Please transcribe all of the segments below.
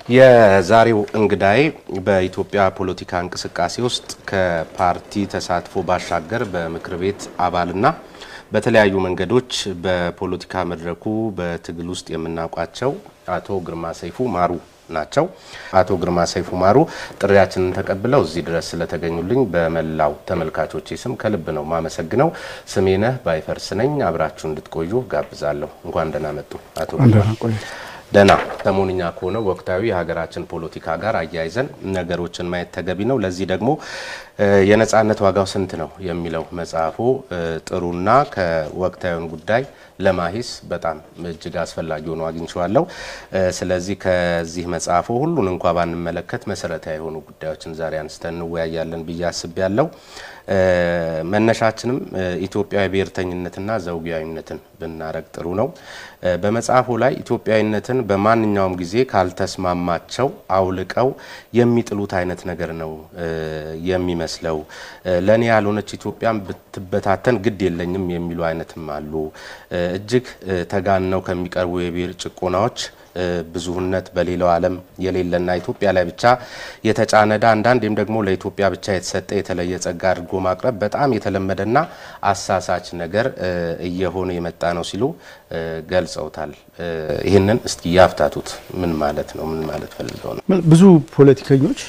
የዛሬው እንግዳይ በኢትዮጵያ ፖለቲካ እንቅስቃሴ ውስጥ ከፓርቲ ተሳትፎ ባሻገር በምክር ቤት አባልና በተለያዩ መንገዶች በፖለቲካ መድረኩ በትግል ውስጥ የምናውቃቸው አቶ ግርማ ሰይፉ ማሩ ናቸው። አቶ ግርማ ሰይፉ ማሩ ጥሪያችንን ተቀብለው እዚህ ድረስ ስለተገኙልኝ በመላው ተመልካቾች ስም ከልብ ነው ማመሰግነው። ስሜነህ ባይፈርስ ነኝ። አብራችሁ እንድትቆዩ ጋብዛለሁ። እንኳን ደህና መጡ አቶ ግርማ። ደና ተሞንኛ ከሆነ ወቅታዊ የሀገራችን ፖለቲካ ጋር አያይዘን ነገሮችን ማየት ተገቢ ነው። ለዚህ ደግሞ የነጻነት ዋጋው ስንት ነው የሚለው መጽሐፉ ጥሩና ከወቅታዊውን ጉዳይ ለማሂስ በጣም እጅግ አስፈላጊ ሆኖ አግኝቼዋለሁ። ስለዚህ ከዚህ መጽሐፉ ሁሉን እንኳን ባንመለከት መሰረታዊ የሆኑ ጉዳዮችን ዛሬ አንስተን እንወያያለን ብዬ አስቤያለሁ። መነሻችንም ኢትዮጵያዊ ብሔርተኝነትና ዘውጊያዊነትን ብናረግ ጥሩ ነው። በመጽሐፉ ላይ ኢትዮጵያዊነትን በማንኛውም ጊዜ ካልተስማማቸው አውልቀው የሚጥሉት አይነት ነገር ነው የሚመስለው። ለኔ ያልሆነች ኢትዮጵያም ብትበታተን ግድ የለኝም የሚሉ አይነትም አሉ። እጅግ ተጋነው ከሚቀርቡ የብሔር ጭቆናዎች ብዙህነት በሌላው ዓለም የሌለና ኢትዮጵያ ላይ ብቻ የተጫነዳ አንዳንዴም ደግሞ ለኢትዮጵያ ብቻ የተሰጠ የተለየ ጸጋ አድርጎ ማቅረብ በጣም የተለመደና አሳሳች ነገር እየሆነ የመጣ ነው ሲሉ ገልጸውታል። ይሄንን እስቲ ያፍታቱት። ምን ማለት ነው? ምን ማለት ፈልገው ነው? ብዙ ፖለቲከኞች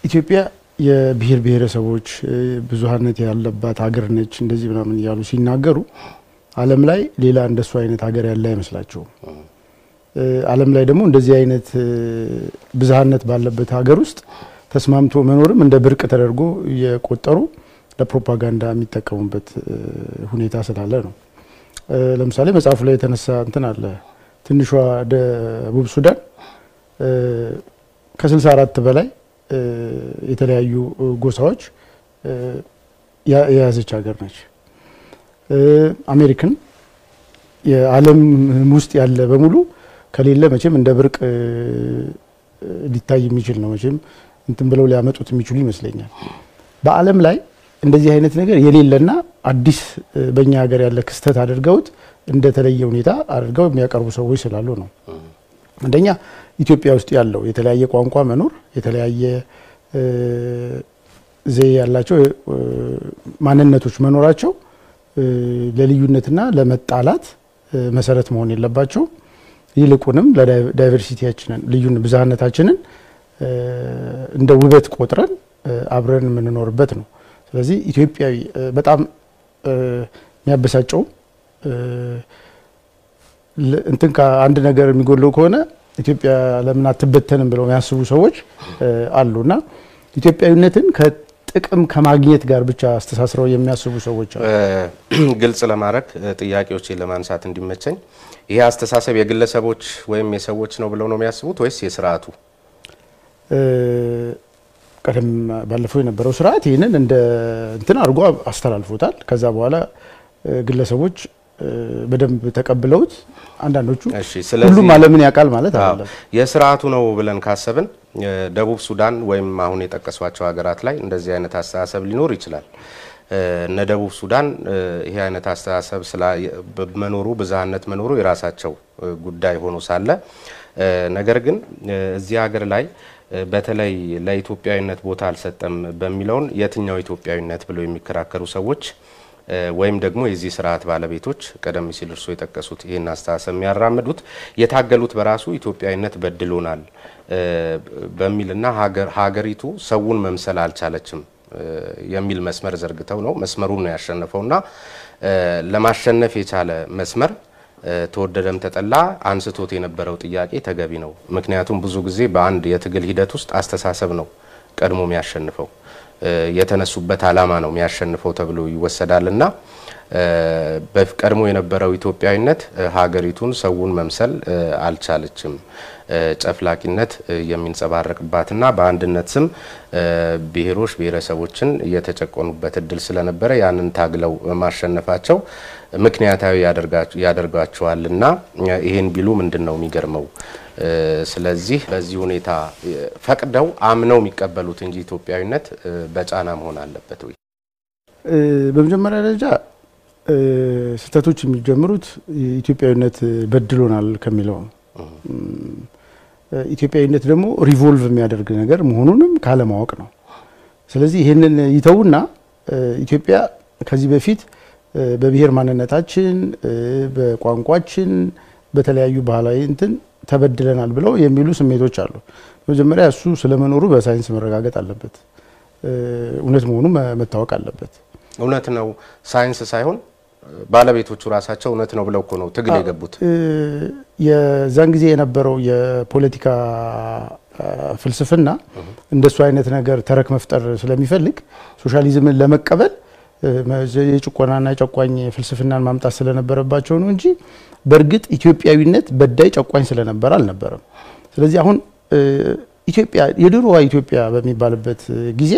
ኢትዮጵያ የብሔር ብሔረሰቦች ብዙሃነት ያለባት ሀገር ነች እንደዚህ ምናምን ያሉ ሲናገሩ ዓለም ላይ ሌላ እንደሱ አይነት ሀገር ያለ አይመስላቸው። ዓለም ላይ ደግሞ እንደዚህ አይነት ብዝሃነት ባለበት ሀገር ውስጥ ተስማምቶ መኖርም እንደ ብርቅ ተደርጎ የቆጠሩ ለፕሮፓጋንዳ የሚጠቀሙበት ሁኔታ ስላለ ነው። ለምሳሌ መጽሐፉ ላይ የተነሳ እንትን አለ። ትንሿ ደቡብ ሱዳን ከ64 በላይ የተለያዩ ጎሳዎች የያዘች ሀገር ነች። አሜሪካን የዓለም ውስጥ ያለ በሙሉ ከሌለ መቼም እንደ ብርቅ ሊታይ የሚችል ነው። መቼም እንትን ብለው ሊያመጡት የሚችሉ ይመስለኛል። በዓለም ላይ እንደዚህ አይነት ነገር የሌለና አዲስ በእኛ ሀገር ያለ ክስተት አድርገውት እንደተለየ ሁኔታ አድርገው የሚያቀርቡ ሰዎች ስላሉ ነው። አንደኛ ኢትዮጵያ ውስጥ ያለው የተለያየ ቋንቋ መኖር፣ የተለያየ ዘዬ ያላቸው ማንነቶች መኖራቸው ለልዩነትና ለመጣላት መሰረት መሆን የለባቸው። ይልቁንም ለዳይቨርሲቲያችንን ልዩነት ብዝሃነታችንን እንደ ውበት ቆጥረን አብረን የምንኖርበት ነው። ስለዚህ ኢትዮጵያዊ በጣም የሚያበሳጨው እንትን ከአንድ ነገር የሚጎለው ከሆነ ኢትዮጵያ ለምን አትበተንም ብለው የሚያስቡ ሰዎች አሉና ኢትዮጵያዊነትን ጥቅም ከማግኘት ጋር ብቻ አስተሳስረው የሚያስቡ ሰዎች አሉ። ግልጽ ለማድረግ ጥያቄዎችን ለማንሳት እንዲመቸኝ ይሄ አስተሳሰብ የግለሰቦች ወይም የሰዎች ነው ብለው ነው የሚያስቡት ወይስ የስርዓቱ? ቀደም ባለፈው የነበረው ስርዓት ይሄንን እንደ እንትን አድርጎ አስተላልፎታል። ከዛ በኋላ ግለሰቦች በደንብ ተቀብለውት አንዳንዶቹ ሁሉም ዓለምን ያቃል ማለት አይደለም። የስርዓቱ ነው ብለን ካሰብን ደቡብ ሱዳን ወይም አሁን የጠቀሷቸው ሀገራት ላይ እንደዚህ አይነት አስተሳሰብ ሊኖር ይችላል። እነ ደቡብ ሱዳን ይሄ አይነት አስተሳሰብ መኖሩ ብዝሃነት መኖሩ የራሳቸው ጉዳይ ሆኖ ሳለ ነገር ግን እዚህ ሀገር ላይ በተለይ ለኢትዮጵያዊነት ቦታ አልሰጠም በሚለው የትኛው ኢትዮጵያዊነት ብለው የሚከራከሩ ሰዎች ወይም ደግሞ የዚህ ስርዓት ባለቤቶች ቀደም ሲል እርሶ የጠቀሱት ይሄን አስተሳሰብ የሚያራምዱት የታገሉት በራሱ ኢትዮጵያዊነት በድሎናል በሚልና ሀገሪቱ ሰውን መምሰል አልቻለችም የሚል መስመር ዘርግተው ነው መስመሩን ነው ያሸነፈውና ለማሸነፍ የቻለ መስመር ተወደደም ተጠላ አንስቶት የነበረው ጥያቄ ተገቢ ነው። ምክንያቱም ብዙ ጊዜ በአንድ የትግል ሂደት ውስጥ አስተሳሰብ ነው ቀድሞ የሚያሸንፈው የተነሱበት ዓላማ ነው የሚያሸንፈው ተብሎ ይወሰዳልና በቀድሞ የነበረው ኢትዮጵያዊነት ሀገሪቱን ሰውን መምሰል አልቻለችም። ጨፍላቂነት የሚንጸባረቅባትና በአንድነት ስም ብሔሮች ብሔረሰቦችን እየተጨቆኑበት እድል ስለነበረ ያንን ታግለው ማሸነፋቸው ምክንያታዊ ያደርጋቸዋልና ይሄን ቢሉ ምንድነው የሚገርመው? ስለዚህ በዚህ ሁኔታ ፈቅደው አምነው የሚቀበሉት እንጂ ኢትዮጵያዊነት በጫና መሆን አለበት ወይ? በመጀመሪያ ደረጃ ስተቶች የሚጀምሩት ኢትዮጵያዊነት በድሎናል ከሚለው ኢትዮጵያዊነት ደግሞ ሪቮልቭ የሚያደርግ ነገር መሆኑንም ካለማወቅ ነው። ስለዚህ ይሄንን ይተውና ኢትዮጵያ ከዚህ በፊት በብሔር ማንነታችን በቋንቋችን በተለያዩ ባህላዊ እንትን ተበድለናል ብለው የሚሉ ስሜቶች አሉ። መጀመሪያ እሱ ስለመኖሩ በሳይንስ መረጋገጥ አለበት። እውነት መሆኑ መታወቅ አለበት። እውነት ነው ሳይንስ ሳይሆን ባለቤቶቹ ራሳቸው እውነት ነው ብለው እኮ ነው ትግል የገቡት። የዛን ጊዜ የነበረው የፖለቲካ ፍልስፍና እንደሱ አይነት ነገር ተረክ መፍጠር ስለሚፈልግ ሶሻሊዝምን ለመቀበል የጭቆናና ጨቋኝ ፍልስፍናን ማምጣት ስለነበረባቸው ነው እንጂ በእርግጥ ኢትዮጵያዊነት በዳይ ጨቋኝ ስለነበር አልነበረም። ስለዚህ አሁን ኢትዮጵያ የድሮዋ ኢትዮጵያ በሚባልበት ጊዜ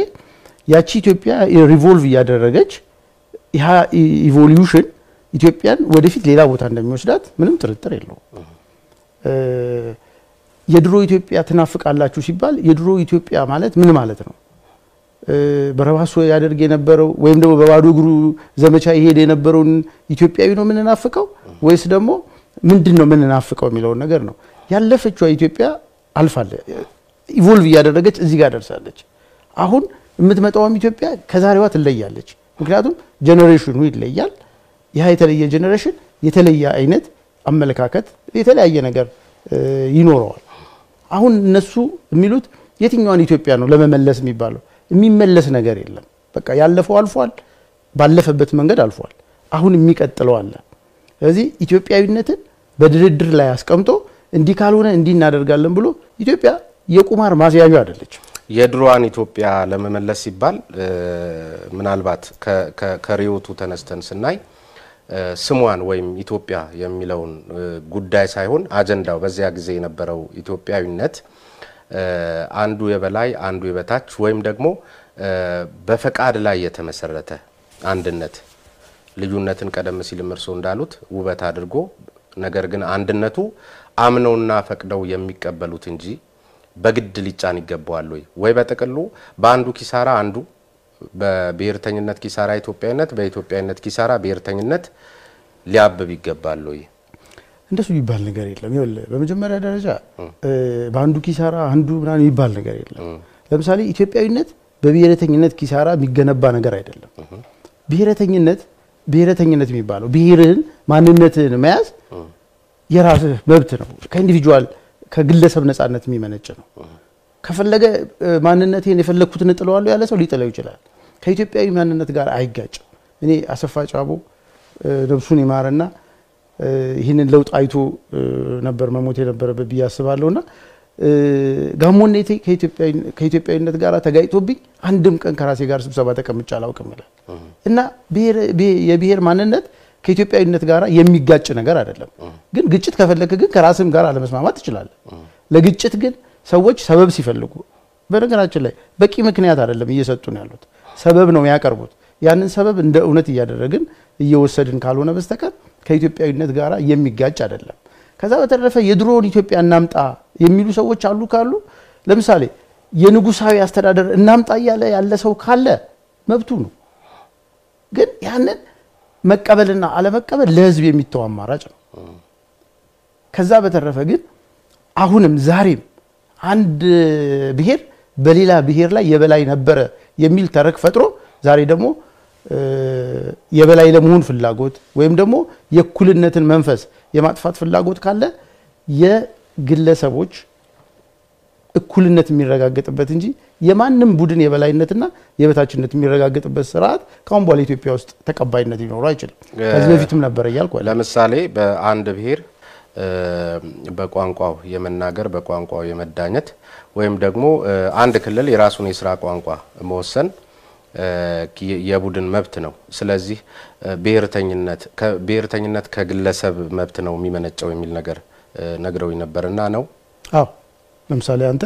ያቺ ኢትዮጵያ ሪቮልቭ ያደረገች ያ ኢቮሉሽን ኢትዮጵያን ወደፊት ሌላ ቦታ እንደሚወስዳት ምንም ጥርጥር የለውም። የድሮ ኢትዮጵያ ትናፍቃላችሁ ሲባል የድሮ ኢትዮጵያ ማለት ምን ማለት ነው? በረባሶ ያደርግ የነበረው ወይም ደግሞ በባዶ እግሩ ዘመቻ ይሄድ የነበረውን ኢትዮጵያዊ ነው ምንናፍቀው ወይስ ደግሞ ምንድነው ምንናፍቀው የሚለው ነገር ነው። ያለፈችው ኢትዮጵያ አልፋለ ኢቮልቭ ያደረገች እዚህ ጋር ደርሳለች። አሁን የምትመጣውም ኢትዮጵያ ከዛሬዋ ትለያለች። ምክንያቱም ጄነሬሽኑ ይለያል። ያ የተለየ ጄነሬሽን የተለየ አይነት አመለካከት የተለያየ ነገር ይኖረዋል። አሁን እነሱ የሚሉት የትኛውን ኢትዮጵያ ነው ለመመለስ የሚባለው? የሚመለስ ነገር የለም። በቃ ያለፈው አልፏል፣ ባለፈበት መንገድ አልፏል። አሁን የሚቀጥለው አለ። ስለዚህ ኢትዮጵያዊነትን በድርድር ላይ አስቀምጦ እንዲህ ካልሆነ እንዲህ እናደርጋለን ብሎ ኢትዮጵያ የቁማር ማስያዣ አይደለች። የድሮዋን ኢትዮጵያ ለመመለስ ሲባል ምናልባት ከሪዮቱ ተነስተን ስናይ ስሟን ወይም ኢትዮጵያ የሚለውን ጉዳይ ሳይሆን አጀንዳው በዚያ ጊዜ የነበረው ኢትዮጵያዊነት አንዱ የበላይ አንዱ የበታች ወይም ደግሞ በፈቃድ ላይ የተመሰረተ አንድነት ልዩነትን ቀደም ሲል እርሶ እንዳሉት ውበት አድርጎ ነገር ግን አንድነቱ አምነውና ፈቅደው የሚቀበሉት እንጂ በግድ ሊጫን ይገባዋል ወይ በጥቅሉ በአንዱ ኪሳራ አንዱ በብሔርተኝነት ኪሳራ ኢትዮጵያዊነት በኢትዮጵያዊነት ኪሳራ ብሔርተኝነት ሊያብብ ይገባል ወይ? እንደሱ ይባል ነገር የለም። ይኸውልህ በመጀመሪያ ደረጃ በአንዱ ኪሳራ አንዱ ምናምን ይባል ነገር የለም። ለምሳሌ ኢትዮጵያዊነት በብሔርተኝነት ኪሳራ የሚገነባ ነገር አይደለም። ብሔርተኝነት የሚባለው ብሔርህን ማንነትህን መያዝ የራስህ መብት ነው። ከኢንዲቪጁዋል ከግለሰብ ነፃነት የሚመነጭ ነው። ከፈለገ ማንነቴን የፈለኩትን እጥለዋለሁ ያለ ሰው ሊጥለው ይችላል። ከኢትዮጵያዊ ማንነት ጋር አይጋጭም። እኔ አሰፋ ጫቦ ነብሱን ይማረና ይህንን ለውጥ አይቶ ነበር መሞት የነበረበት ብዬ አስባለሁና ጋሞኔቴ ከኢትዮጵያዊነት ጋር ተጋጭቶብኝ አንድም ቀን ከራሴ ጋር ስብሰባ ተቀምጬ አላውቅም ይላል። እና የብሔር ማንነት ከኢትዮጵያዊነት ጋር የሚጋጭ ነገር አይደለም። ግን ግጭት ከፈለክ ግን ከራስም ጋር አለመስማማት ትችላለህ። ለግጭት ግን ሰዎች ሰበብ ሲፈልጉ በነገራችን ላይ በቂ ምክንያት አይደለም እየሰጡን ያሉት ሰበብ ነው ያቀርቡት። ያንን ሰበብ እንደ እውነት እያደረግን እየወሰድን ካልሆነ በስተቀር ከኢትዮጵያዊነት ጋር የሚጋጭ አይደለም። ከዛ በተረፈ የድሮውን ኢትዮጵያ እናምጣ የሚሉ ሰዎች አሉ ካሉ ለምሳሌ የንጉሳዊ አስተዳደር እናምጣ ያለ ሰው ካለ መብቱ ነው። ግን ያንን መቀበልና አለመቀበል ለህዝብ የሚተው አማራጭ ነው። ከዛ በተረፈ ግን አሁንም ዛሬም አንድ ብሔር በሌላ ብሔር ላይ የበላይ ነበረ የሚል ተረክ ፈጥሮ ዛሬ ደግሞ የበላይ ለመሆን ፍላጎት ወይም ደግሞ የኩልነትን መንፈስ የማጥፋት ፍላጎት ካለ የግለሰቦች እኩልነት የሚረጋገጥበት እንጂ የማንም ቡድን የበላይነትና የበታችነት የሚረጋገጥበት ስርዓት ካሁን በኋላ ኢትዮጵያ ውስጥ ተቀባይነት ሊኖር አይችልም። ከዚህ በፊትም ነበር እያልኩ ለምሳሌ በአንድ ብሔር በቋንቋው የመናገር በቋንቋው የመዳኘት ወይም ደግሞ አንድ ክልል የራሱን የሥራ ቋንቋ መወሰን የቡድን መብት ነው። ስለዚህ ብሔርተኝነት ከግለሰብ መብት ነው የሚመነጨው የሚል ነገር ነግረው ነበርና ነው። አዎ ለምሳሌ አንተ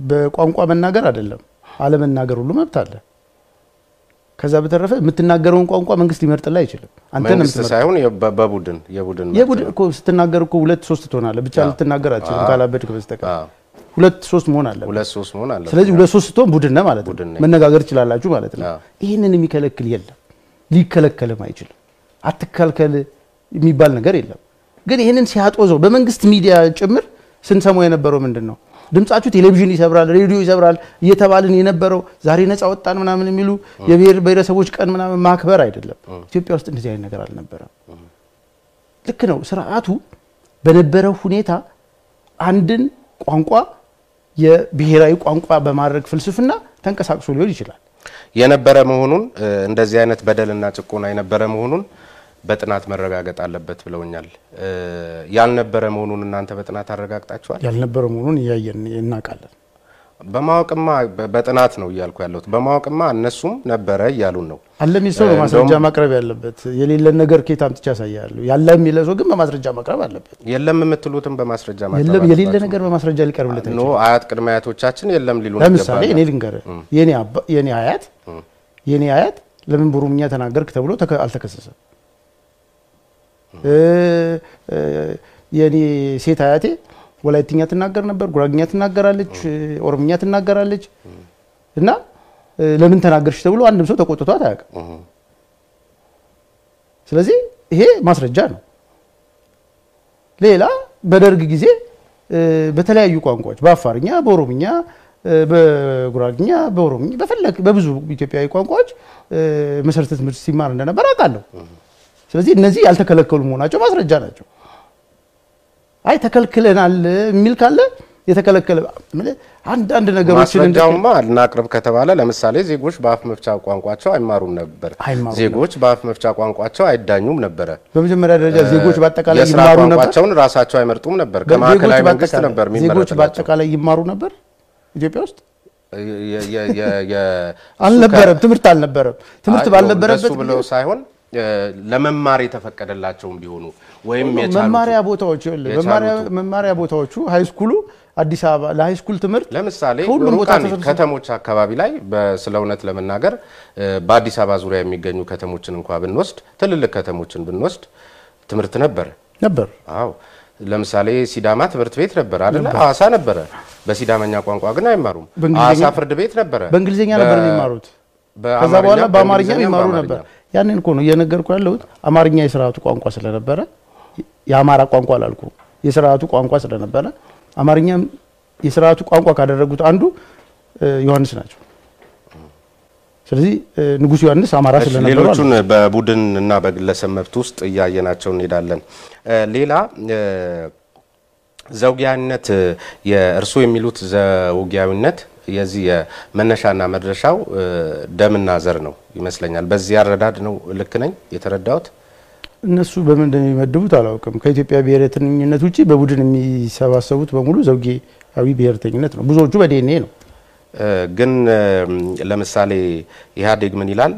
በቋንቋ መናገር አይደለም አለመናገር ሁሉ መብት አለ። ከዛ በተረፈ የምትናገረውን ቋንቋ መንግስት ሊመርጥልህ አይችልም። አንተ መንግስት ሳይሆን የቡድን እኮ ስትናገር እኮ ሁለት ሶስት ትሆናለህ። ብቻ ልትናገር አትችልም ካላበድክ በስተቀር ሁለት ሶስት መሆን አለ። ስለዚህ ሁለት ሶስት ትሆን ቡድን ነህ ማለት ነው። መነጋገር ይችላልላችሁ ማለት ነው። ይሄንን የሚከለክል የለም፣ ሊከለከልም አይችልም። አትከልከል የሚባል ነገር የለም። ግን ይሄንን ሲያጦዘው በመንግስት ሚዲያ ጭምር ስንሰማው የነበረው ምንድነው ድምጻችሁ ቴሌቪዥን ይሰብራል ሬዲዮ ይሰብራል እየተባልን የነበረው ዛሬ ነፃ ወጣን ምናምን የሚሉ የብሔር ብሔረሰቦች ቀን ምናምን ማክበር አይደለም ኢትዮጵያ ውስጥ እንደዚህ አይነት ነገር አልነበረም ልክ ነው ስርዓቱ በነበረው ሁኔታ አንድን ቋንቋ የብሔራዊ ቋንቋ በማድረግ ፍልስፍና ተንቀሳቅሶ ሊሆን ይችላል የነበረ መሆኑን እንደዚህ አይነት በደልና ጭቆና የነበረ መሆኑን በጥናት መረጋገጥ አለበት ብለውኛል ያልነበረ መሆኑን እናንተ በጥናት አረጋግጣችኋል ያልነበረ መሆኑን ያየን እናቃለን በማወቅማ በጥናት ነው ይያልኩ ያለሁት በማወቅማ እነሱም ነበረ ይያሉን ነው አለሚሰው በማስረጃ ማቅረብ ያለበት የሌለ ነገር ከታም ተቻሳያለሁ ያለም ይለሶ ግን በማስረጃ ማቅረብ አለበት የለም የምትሉትም በማስረጃ ማቅረብ የለም የሌለ ነገር በማስረጃ ሊቀርብለት ነው አያት ቅድመ አያቶቻችን የለም ሊሉ ለምሳሌ እኔ ልንገር የኔ አያት ለምን ቡሩምኛ ተናገርክ ተብሎ አልተከሰሰም የኔ ሴት አያቴ ወላይትኛ ትናገር ነበር ጉራግኛ ትናገራለች ኦሮምኛ ትናገራለች እና ለምን ተናገርሽ ተብሎ አንድም ሰው ተቆጥቷት አያውቅም ስለዚህ ይሄ ማስረጃ ነው ሌላ በደርግ ጊዜ በተለያዩ ቋንቋዎች በአፋርኛ በኦሮምኛ በጉራግኛ በኦሮምኛ በብዙ ኢትዮጵያዊ ቋንቋዎች መሰረተ ትምህርት ሲማር እንደነበር አውቃለሁ ስለዚህ እነዚህ ያልተከለከሉ መሆናቸው ማስረጃ ናቸው አይ ተከልክለናል የሚል ካለ የተከለከለ አንድ ነገሮችን ማስረጃውማ አልናቅርብ ከተባለ ለምሳሌ ዜጎች በአፍ መፍቻ ቋንቋቸው አይማሩም ነበር ዜጎች በአፍ መፍቻ ቋንቋቸው አይዳኙም ነበር በመጀመሪያ ደረጃ ዜጎች በአጠቃላይ ይማሩ ነበር ቋንቋቸውን ራሳቸው አይመርጡም ነበር ከማዕከላዊ መንግስት ነበር የሚመረጥ ዜጎች በአጠቃላይ ይማሩ ነበር ኢትዮጵያ ውስጥ አልነበረም ትምህርት አልነበረም ትምህርት ባልነበረበት ብለው ሳይሆን ለመማር የተፈቀደላቸው ቢሆኑ ወይም የቻሉት መማሪያ ቦታዎቹ ሃይስኩሉ አዲስ አበባ ለሃይስኩል ትምህርት ለምሳሌ ከተሞች አካባቢ ላይ በስለውነት ለመናገር በአዲስ አበባ ዙሪያ የሚገኙ ከተሞችን እንኳን ብንወስድ ትልልቅ ከተሞችን ብንወስድ ትምህርት ነበር አዎ ለምሳሌ ሲዳማ ትምህርት ቤት ነበር አይደል አዋሳ ነበር በሲዳመኛ ቋንቋ ግን አይማሩም አዋሳ ፍርድ ቤት ነበር በእንግሊዘኛ ነበር የሚማሩት ከዛ በኋላ በአማርኛ ይማሩ ነበር ያንን እኮ ነው እየነገርኩ ያለሁት አማርኛ የሥርዓቱ ቋንቋ ስለነበረ የአማራ ቋንቋ አላልኩ የሥርዓቱ ቋንቋ ስለነበረ አማርኛ የሥርዓቱ ቋንቋ ካደረጉት አንዱ ዮሐንስ ናቸው ስለዚህ ንጉስ ዮሐንስ አማራ ስለነበረ ሌሎቹን በቡድን እና በግለሰብ መብት ውስጥ ያያየናቸው እንሄዳለን ሌላ ዘውጊያነት የእርሱ የሚሉት ዘውጊያዊነት የዚህ መነሻና መድረሻው ደምና ዘር ነው ይመስለኛል በዚህ ያረዳድ ነው ልክ ነኝ የተረዳሁት እነሱ በምን እንደሚመድቡት አላውቅም ከኢትዮጵያ ብሔርተኝነት ውጪ በቡድን የሚሰባሰቡት በሙሉ ዘውጊያዊ ብሔርተኝነት ነው ብዙዎቹ በዲኤንኤ ነው ግን ለምሳሌ ኢህአዴግ ምን ይላል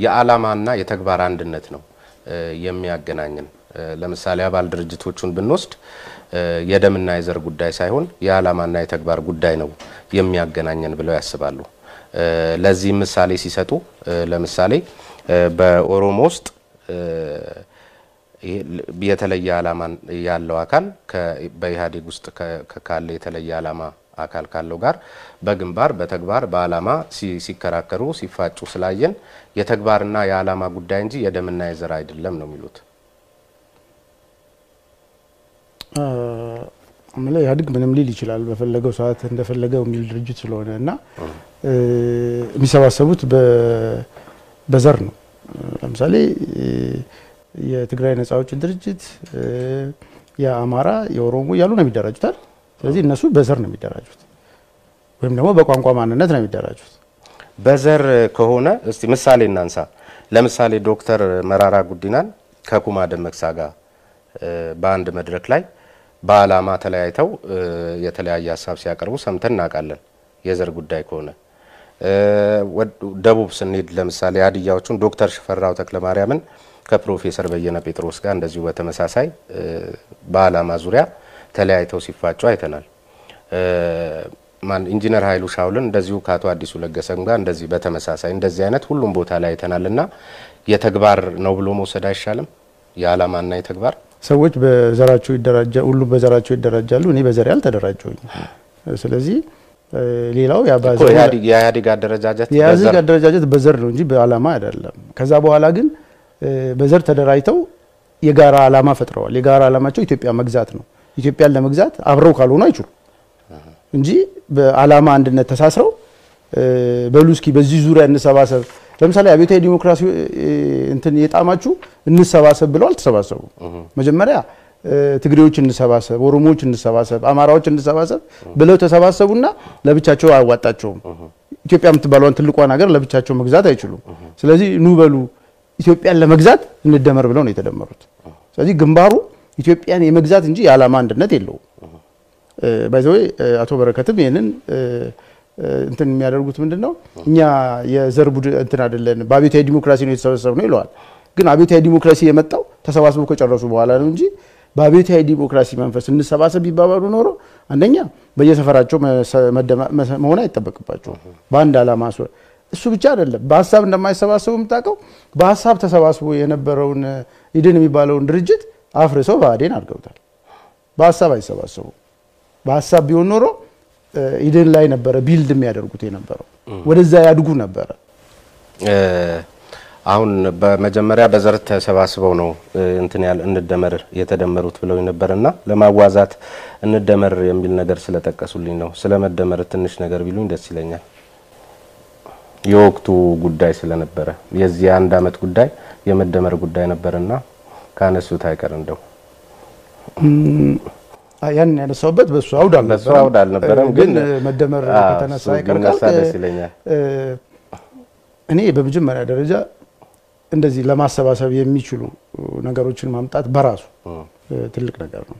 የዓላማና የተግባር አንድነት ነው የሚያገናኘን ለምሳሌ አባል ድርጅቶቹን ብንወስድ የደምና የዘር ጉዳይ ሳይሆን የዓላማና የተግባር ጉዳይ ነው የሚያገናኘን ብለው ያስባሉ ለዚህ ምሳሌ ሲሰጡ ለምሳሌ በኦሮሞ ውስጥ የተለየ ዓላማ ያለው አካል በኢህአዴግ ውስጥ ካለ የተለየ ዓላማ አካል ካለው ጋር በግንባር በተግባር በዓላማ ሲከራከሩ ሲፋጩ ስላየን የተግባርና የዓላማ ጉዳይ እንጂ የደምና የዘር አይደለም ነው የሚሉት አመለ ኢህአዴግ ምንም ሊል ይችላል በፈለገው ሰዓት እንደፈለገው የሚል ድርጅት ስለሆነና የሚሰባሰቡት በዘር ነው ለምሳሌ የትግራይ ነፃ አውጪ ድርጅት የአማራ የኦሮሞ ያሉ ነው የሚደራጁት ስለዚህ እነሱ በዘር ነው የሚደራጁት ወይም ደግሞ በቋንቋ ማንነት ነው የሚደራጁት በዘር ከሆነ እስቲ ምሳሌ እናንሳ ለምሳሌ ዶክተር መራራ ጉዲናን ከኩማ ደመቅሳ ጋር በአንድ መድረክ ላይ በዓላማ ተለያይተው የተለያየ ሐሳብ ሲያቀርቡ ሰምተን እናውቃለን የዘር ጉዳይ ከሆነ ደቡብ ስንሄድ ለምሳሌ አዲያዎቹን ዶክተር ሽፈራው ተክለማርያምን ከፕሮፌሰር በየነ ጴጥሮስ ጋር እንደዚሁ በተመሳሳይ በዓላማ ዙሪያ ተለያይተው ሲፋጩ አይተናል ኢንጂነር ኃይሉ ሻውልን እንደዚሁ ካቶ አዲሱ ለገሰም ጋር እንደዚህ በተመሳሳይ እንደዚህ አይነት ሁሉም ቦታ ላይ አይተናልና የተግባር ነው ብሎ መውሰድ አይሻልም የዓላማና የተግባር ሰዎች በዘራቸው ይደራጃሉ ሁሉ በዘራቸው ይደራጃሉ እኔ በዘር ያልተደራጀሁኝ ስለዚህ ሌላው የኢህአዴግ አደረጃጀት በዘር ነው እንጂ በዓላማ አይደለም ከዛ በኋላ ግን በዘር ተደራጅተው የጋራ ዓላማ ፈጥረዋል። የጋራ ዓላማቸው ኢትዮጵያ መግዛት ነው። ኢትዮጵያን ለመግዛት አብረው ካልሆኑ አይችሉም እንጂ በዓላማ አንድነት ተሳስረው በሉ እስኪ በዚህ ዙሪያ እንሰባሰብ። ለምሳሌ አብዮታዊ ዲሞክራሲ እንትን የጣማችሁ እንሰባሰብ ብለው አልተሰባሰቡም። መጀመሪያ ትግሬዎች እንሰባሰብ፣ ኦሮሞዎች እንሰባሰብ፣ አማራዎች እንሰባሰብ ብለው ተሰባሰቡና ለብቻቸው አያዋጣቸውም። ኢትዮጵያ የምትባለውን ትልቋን ሀገር ለብቻቸው መግዛት አይችሉም። ስለዚህ ኑ በሉ ኢትዮጵያን ለመግዛት እንደመር ብለው ነው የተደመሩት። ስለዚህ ግንባሩ ኢትዮጵያን የመግዛት እንጂ የዓላማ አንድነት የለውም። ባይዘው አቶ በረከትም ይሄንን እንትን የሚያደርጉት ምንድነው እኛ የዘር ቡድን እንትን አይደለን በአብዮታዊ ዲሞክራሲ ነው የተሰበሰብነው ይለዋል። ግን አብዮታዊ ዲሞክራሲ የመጣው ተሰባስበው ከጨረሱ በኋላ ነው እንጂ በአብዮታዊ ዲሞክራሲ መንፈስ እንሰባሰብ ቢባባሉ ኖሮ አንደኛ በየሰፈራቸው መሆን አይጠበቅባቸው በአንድ ዓላማ እሱ ብቻ አይደለም በሐሳብ እንደማይሰባሰቡ የምታውቀው በሐሳብ ተሰባስቦ የነበረውን ኢድን የሚባለውን ድርጅት አፍርሰው ባዴን አድርገውታል። በሐሳብ አይሰባሰቡ። በሐሳብ ቢሆን ኖሮ ኢድን ላይ ነበረ ቢልድ የሚያደርጉት የነበረው ወደዛ ያድጉ ነበረ። አሁን በመጀመሪያ በዘር ተሰባስበው ነው እንትን ያለ እንደመር የተደመሩት ብለው ነበርና ለማዋዛት እንደመር የሚል ነገር ስለጠቀሱልኝ ነው። ስለመደመር ትንሽ ነገር ቢሉኝ ደስ ይለኛል። የወቅቱ ጉዳይ ስለነበረ የዚህ አንድ አመት ጉዳይ የመደመር ጉዳይ ነበርና ካነሱት አይቀር እንደው ያን ያነሳውበት በሱ አውድ አልነበረም ግን መደመር ከተነሳ አይቀር ደስ ይለኛል። እኔ በመጀመሪያ ደረጃ እንደዚህ ለማሰባሰብ የሚችሉ ነገሮችን ማምጣት በራሱ ትልቅ ነገር ነው።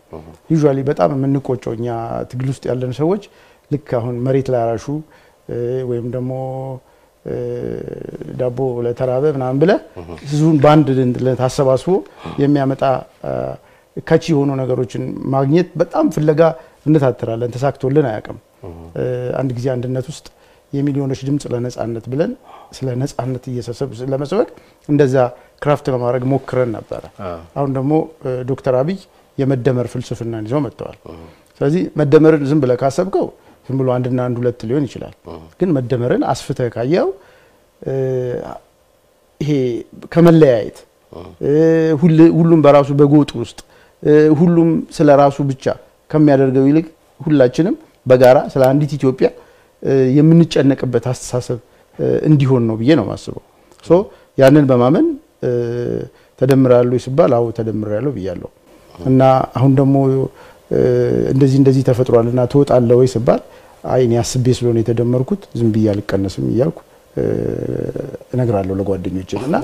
ዩዥዋሊ በጣም የምንቆጨውኛ ትግል ውስጥ ያለን ሰዎች ልክ አሁን መሬት ላይ አራሹ ወይም ደግሞ ዳቦ ለተራበ ምናምን ብለ ህዝቡን ባንድ ለታሰባስቦ የሚያመጣ ካቺ የሆኑ ነገሮችን ማግኘት በጣም ፍለጋ እንታተራለን። ተሳክቶልን አያውቅም። አንድ ጊዜ አንድነት ውስጥ የሚሊዮኖች ድምጽ ለነጻነት ብለን ስለ ነጻነት እየሰሰብ ለመስበክ እንደዛ ክራፍት ለማድረግ ሞክረን ነበር። አሁን ደግሞ ዶክተር አብይ የመደመር ፍልስፍናን ይዘው መጥተዋል። ስለዚህ መደመርን ዝም ብለ ካሰብከው ዝም ብሎ አንድና አንድ ሁለት ሊሆን ይችላል። ግን መደመርን አስፍተህ ካየው ይሄ ከመለያየት ሁሉም በራሱ በጎጥ ውስጥ ሁሉም ስለራሱ ብቻ ከሚያደርገው ይልቅ ሁላችንም በጋራ ስለ አንዲት ኢትዮጵያ የምንጨነቅበት አስተሳሰብ እንዲሆን ነው ብዬ ነው ማስበው። ሶ ያንን በማመን ተደምራሉ ይስባል አው ተደምራሉ ብያለሁ እና አሁን ደግሞ እንደዚህ ተፈጥሯልና ተወጣለው ይስባል አይኔ አስቤ ስለሆነ የተደመርኩት ዝም ብዬ አልቀነስም ይያልኩ እነግራለሁ ለጓደኞቼና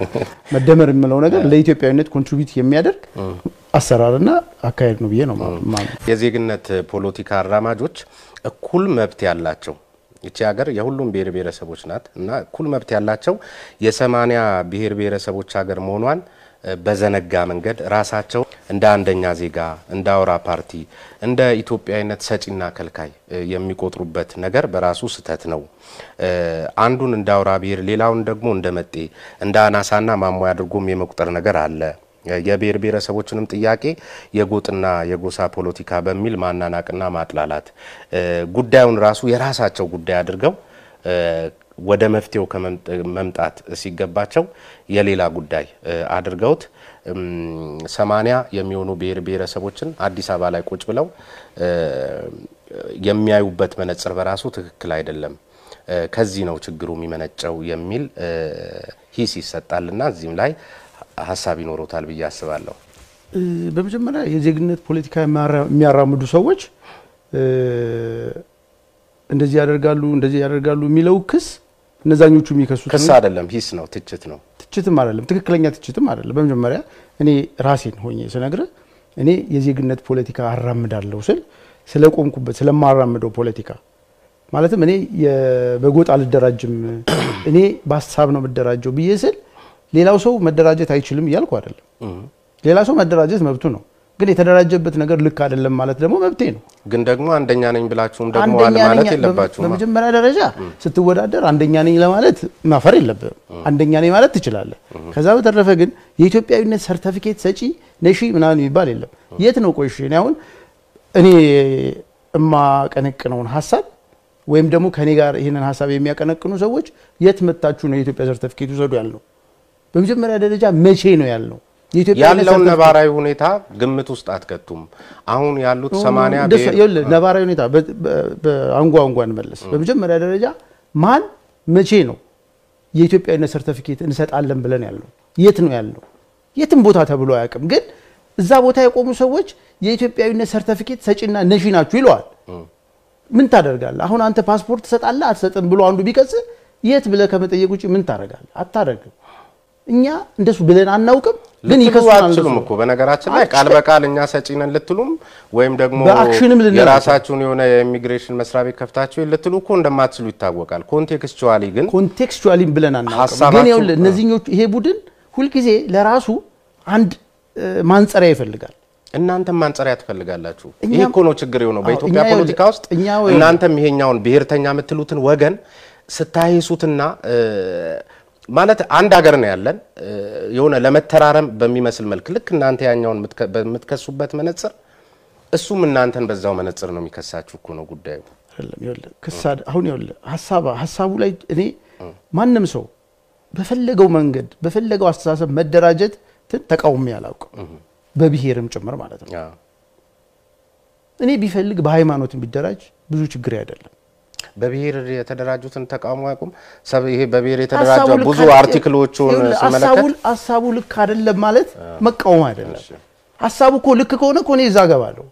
መደመር የሚለው ነገር ለኢትዮጵያዊነት ኮንትሪቢዩት የሚያደርግ አሰራርና አካሄድ ነው ብዬ ነው ማለት። የዜግነት ፖለቲካ አራማጆች እኩል መብት ያላቸው እቺ ሀገር የሁሉም ብሔር ብሔረሰቦች ናት እና እኩል መብት ያላቸው የ80 ብሔር ብሔረሰቦች ሀገር መሆኗን በዘነጋ መንገድ ራሳቸው እንደ አንደኛ ዜጋ እንደ አውራ ፓርቲ እንደ ኢትዮጵያዊነት ሰጪና ከልካይ የሚቆጥሩበት ነገር በራሱ ስተት ነው። አንዱን እንደ አውራ ብሔር ሌላውን ደግሞ እንደ መጤ እንደ አናሳና ማሟያ አድርጎም የመቁጠር ነገር አለ። የብሔር ብሔረሰቦችንም ጥያቄ የጎጥና የጎሳ ፖለቲካ በሚል ማናናቅና ማጥላላት ጉዳዩን ራሱ የራሳቸው ጉዳይ አድርገው ወደ መፍትሄው ከመምጣት ሲገባቸው የሌላ ጉዳይ አድርገውት 80 የሚሆኑ ብሔር ብሔረሰቦችን አዲስ አበባ ላይ ቁጭ ብለው የሚያዩበት መነጽር በራሱ ትክክል አይደለም። ከዚህ ነው ችግሩ የሚመነጨው የሚል ሂስ ይሰጣልና እዚህም ላይ ሐሳብ ይኖሮታል ብዬ አስባለሁ። በመጀመሪያ የዜግነት ፖለቲካ የሚያራምዱ ሰዎች እንደዚህ ያደርጋሉ የሚለው ክስ እነዛኞቹ የሚከሱት ክስ አይደለም፣ ሂስ ነው፣ ትችት ነው። ትችትም አይደለም፣ ትክክለኛ ትችትም አይደለም። በመጀመሪያ እኔ ራሴን ሆኜ ስነግር እኔ የዜግነት ፖለቲካ አራምዳለሁ ስል ስለቆምኩበት ስለማራምደው ፖለቲካ ማለትም እኔ በጎጥ አልደራጅም እኔ በሐሳብ ነው መደራጀው ብዬ ስል ሌላው ሰው መደራጀት አይችልም ይያልኩ አይደለም። ሌላ ሰው መደራጀት መብቱ ነው። ግን የተደራጀበት ነገር ልክ አይደለም ማለት ደግሞ መብቴ ነው። ግን ደግሞ አንደኛ ነኝ ብላችሁም ደግሞ ማለት የለባችሁም። በመጀመሪያ ደረጃ ስትወዳደር አንደኛ ነኝ ለማለት ማፈር የለብህም። አንደኛ ነኝ ማለት ትችላለህ። ከዛ በተረፈ ግን የኢትዮጵያዊነት ሰርቲፊኬት ሰጪ ነሺ ምናምን ይባል የለም። የት ነው ቆይሽ እኔ አሁን እኔ እማቀነቅነውን ሐሳብ ወይም ደግሞ ከኔ ጋር ይሄንን ሐሳብ የሚያቀነቅኑ ሰዎች የት መጣችሁ ነው የኢትዮጵያ ሰርቲፊኬት ውሰዱ ያልነው? በመጀመሪያ ደረጃ መቼ ነው ያልነው? ያለውን ነባራዊ ሁኔታ ግምት ውስጥ አትከቱም አሁን ያሉት 80 ብሔር ነባራዊ ሁኔታ በአንጓን መለስ በመጀመሪያ ደረጃ ማን መቼ ነው የኢትዮጵያዊነት ሰርቲፊኬት እንሰጣለን ብለን ያለው የት ነው ያለው የትም ቦታ ተብሎ አያውቅም ግን እዛ ቦታ የቆሙ ሰዎች የኢትዮጵያዊነት ሰርቲፊኬት ሰጪና ነሺ ናችሁ ይለዋል ምን ታደርጋለህ አሁን አንተ ፓስፖርት ተሰጣለህ አትሰጥም ብሎ አንዱ ቢቀጽ የት ብለ ከመጠየቅ ውጪ ምን ታደርጋለህ አታደርግም እኛ እንደሱ ብለን አናውቅም ግን ይከሱናል እኮ በነገራችን ላይ ቃል በቃል እኛ ሰጪነን ልትሉም ወይም ደግሞ የራሳችሁን የሆነ የኢሚግሬሽን መስሪያ ቤት ከፍታችሁ ልትሉ እኮ እንደማትችሉ ይታወቃል ኮንቴክስቹአሊ ብለን አናውቅም ግን ይኸውልህ እነዚህኞቹ ይሄ ቡድን ሁሉ ጊዜ ለራሱ አንድ ማንጸሪያ ይፈልጋል እናንተም ማንጸሪያ ትፈልጋላችሁ ይሄ እኮ ነው ችግር የሆነው በኢትዮጵያ ፖለቲካ ውስጥ እናንተም ይሄኛውን ብሔርተኛ የምትሉትን ወገን ስታይሱትና ማለት አንድ ሀገር ነው ያለን የሆነ ለመተራረም በሚመስል መልክ ልክ እናንተ ያኛውን በመትከሱበት መነጽር እሱም እናንተን በዛው መነጽር ነው የሚከሳችሁ እኮ ነው ጉዳዩ አይደለም ይኸውልህ ክሳድ አሁን ይኸውልህ ሐሳቡ ላይ እኔ ማንንም ሰው በፈለገው መንገድ በፈለገው አስተሳሰብ መደራጀት ተቃውሞ ያላውቀው በብሔርም ጭምር ማለት ነው እኔ ቢፈልግ በሃይማኖትም ቢደራጅ ብዙ ችግር አይደለም በብሔር የተደራጁትን ተቃውሞ ያቁም ይሄ በብሔር የተደራጁ ብዙ አርቲክሎቹን ሲመለከት ሐሳቡ ልክ አይደለም ማለት መቃወም አይደለም ሐሳቡ እኮ ልክ ከሆነ እኮ እኔ እዛ ገባለሁ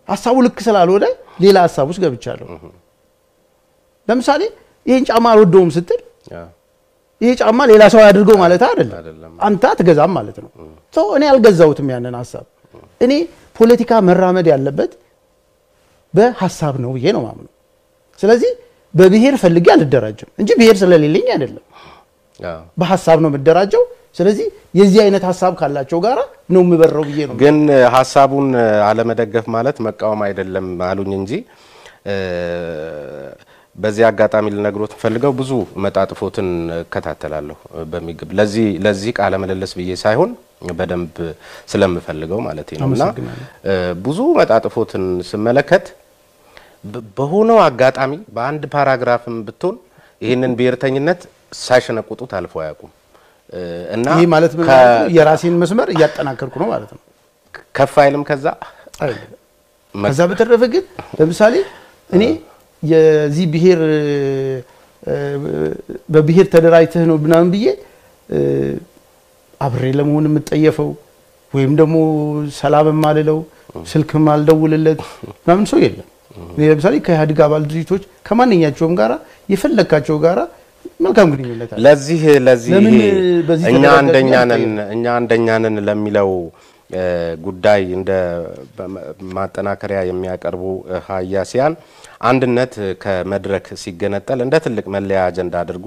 ሐሳቡ ልክ ስላልሆነ ሌላ ሐሳብ ውስጥ ገብቻለሁ ለምሳሌ ይሄን ጫማ አልወደውም ስትል ይሄ ጫማ ሌላ ሰው ያድርገው ማለት አይደለም አንተ አትገዛም ማለት ነው እኔ አልገዛውትም ያንን ሐሳብ እኔ ፖለቲካ መራመድ ያለበት በሐሳብ ነው ይሄ ነው ማምነው ስለዚህ በብሔር ፈልጌ አልደራጀም እንጂ ብሔር ስለሌለኝ አይደለም በሐሳብ ነው መደራጀው ስለዚህ የዚህ አይነት ሐሳብ ካላቸው ጋራ ነው ምበረው ብዬ ነው ግን ሐሳቡን አለመደገፍ ማለት መቃወም አይደለም አሉኝ እንጂ በዚህ አጋጣሚ ልነግሮት ፈልገው ብዙ መጣጥፎትን ከታተላለሁ በሚግብ ለዚህ ቃለ መለለስ ብዬ ሳይሆን በደንብ ስለምፈልገው ማለት ነውና ብዙ መጣጥፎትን ስመለከት በሆነው አጋጣሚ በአንድ ፓራግራፍም ብትሆን ይሄንን ብሔርተኝነት ሳይሸነቁጡት አልፎ ያቁም እና ይሄ ማለት ምን የራሴን መስመር ያጠናከርኩ ነው ማለት ነው ከፋይልም ከዛ በተረፈ ግን ለምሳሌ እኔ የዚህ ብሔር በብሔር ተደራጅተህ ነው ብናም ብዬ አብሬ ለመሆን የምጠየፈው ወይም ደግሞ ሰላም ማለለው ስልክ ማልደውልለት ምናምን ሰው የለም ለምሳሌ ከኢህአዴግ አባል ድርጅቶች ከማንኛቸውም ጋራ የፈለካቸው ጋራ መልካም ግንኙነት አለ ለዚህ እኛ አንደኛ ነን ለሚለው ጉዳይ እንደ ማጠናከሪያ የሚያቀርቡ ሀያሲያን አንድነት ከመድረክ ሲገነጠል እንደ ትልቅ መለያ አጀንዳ አድርጎ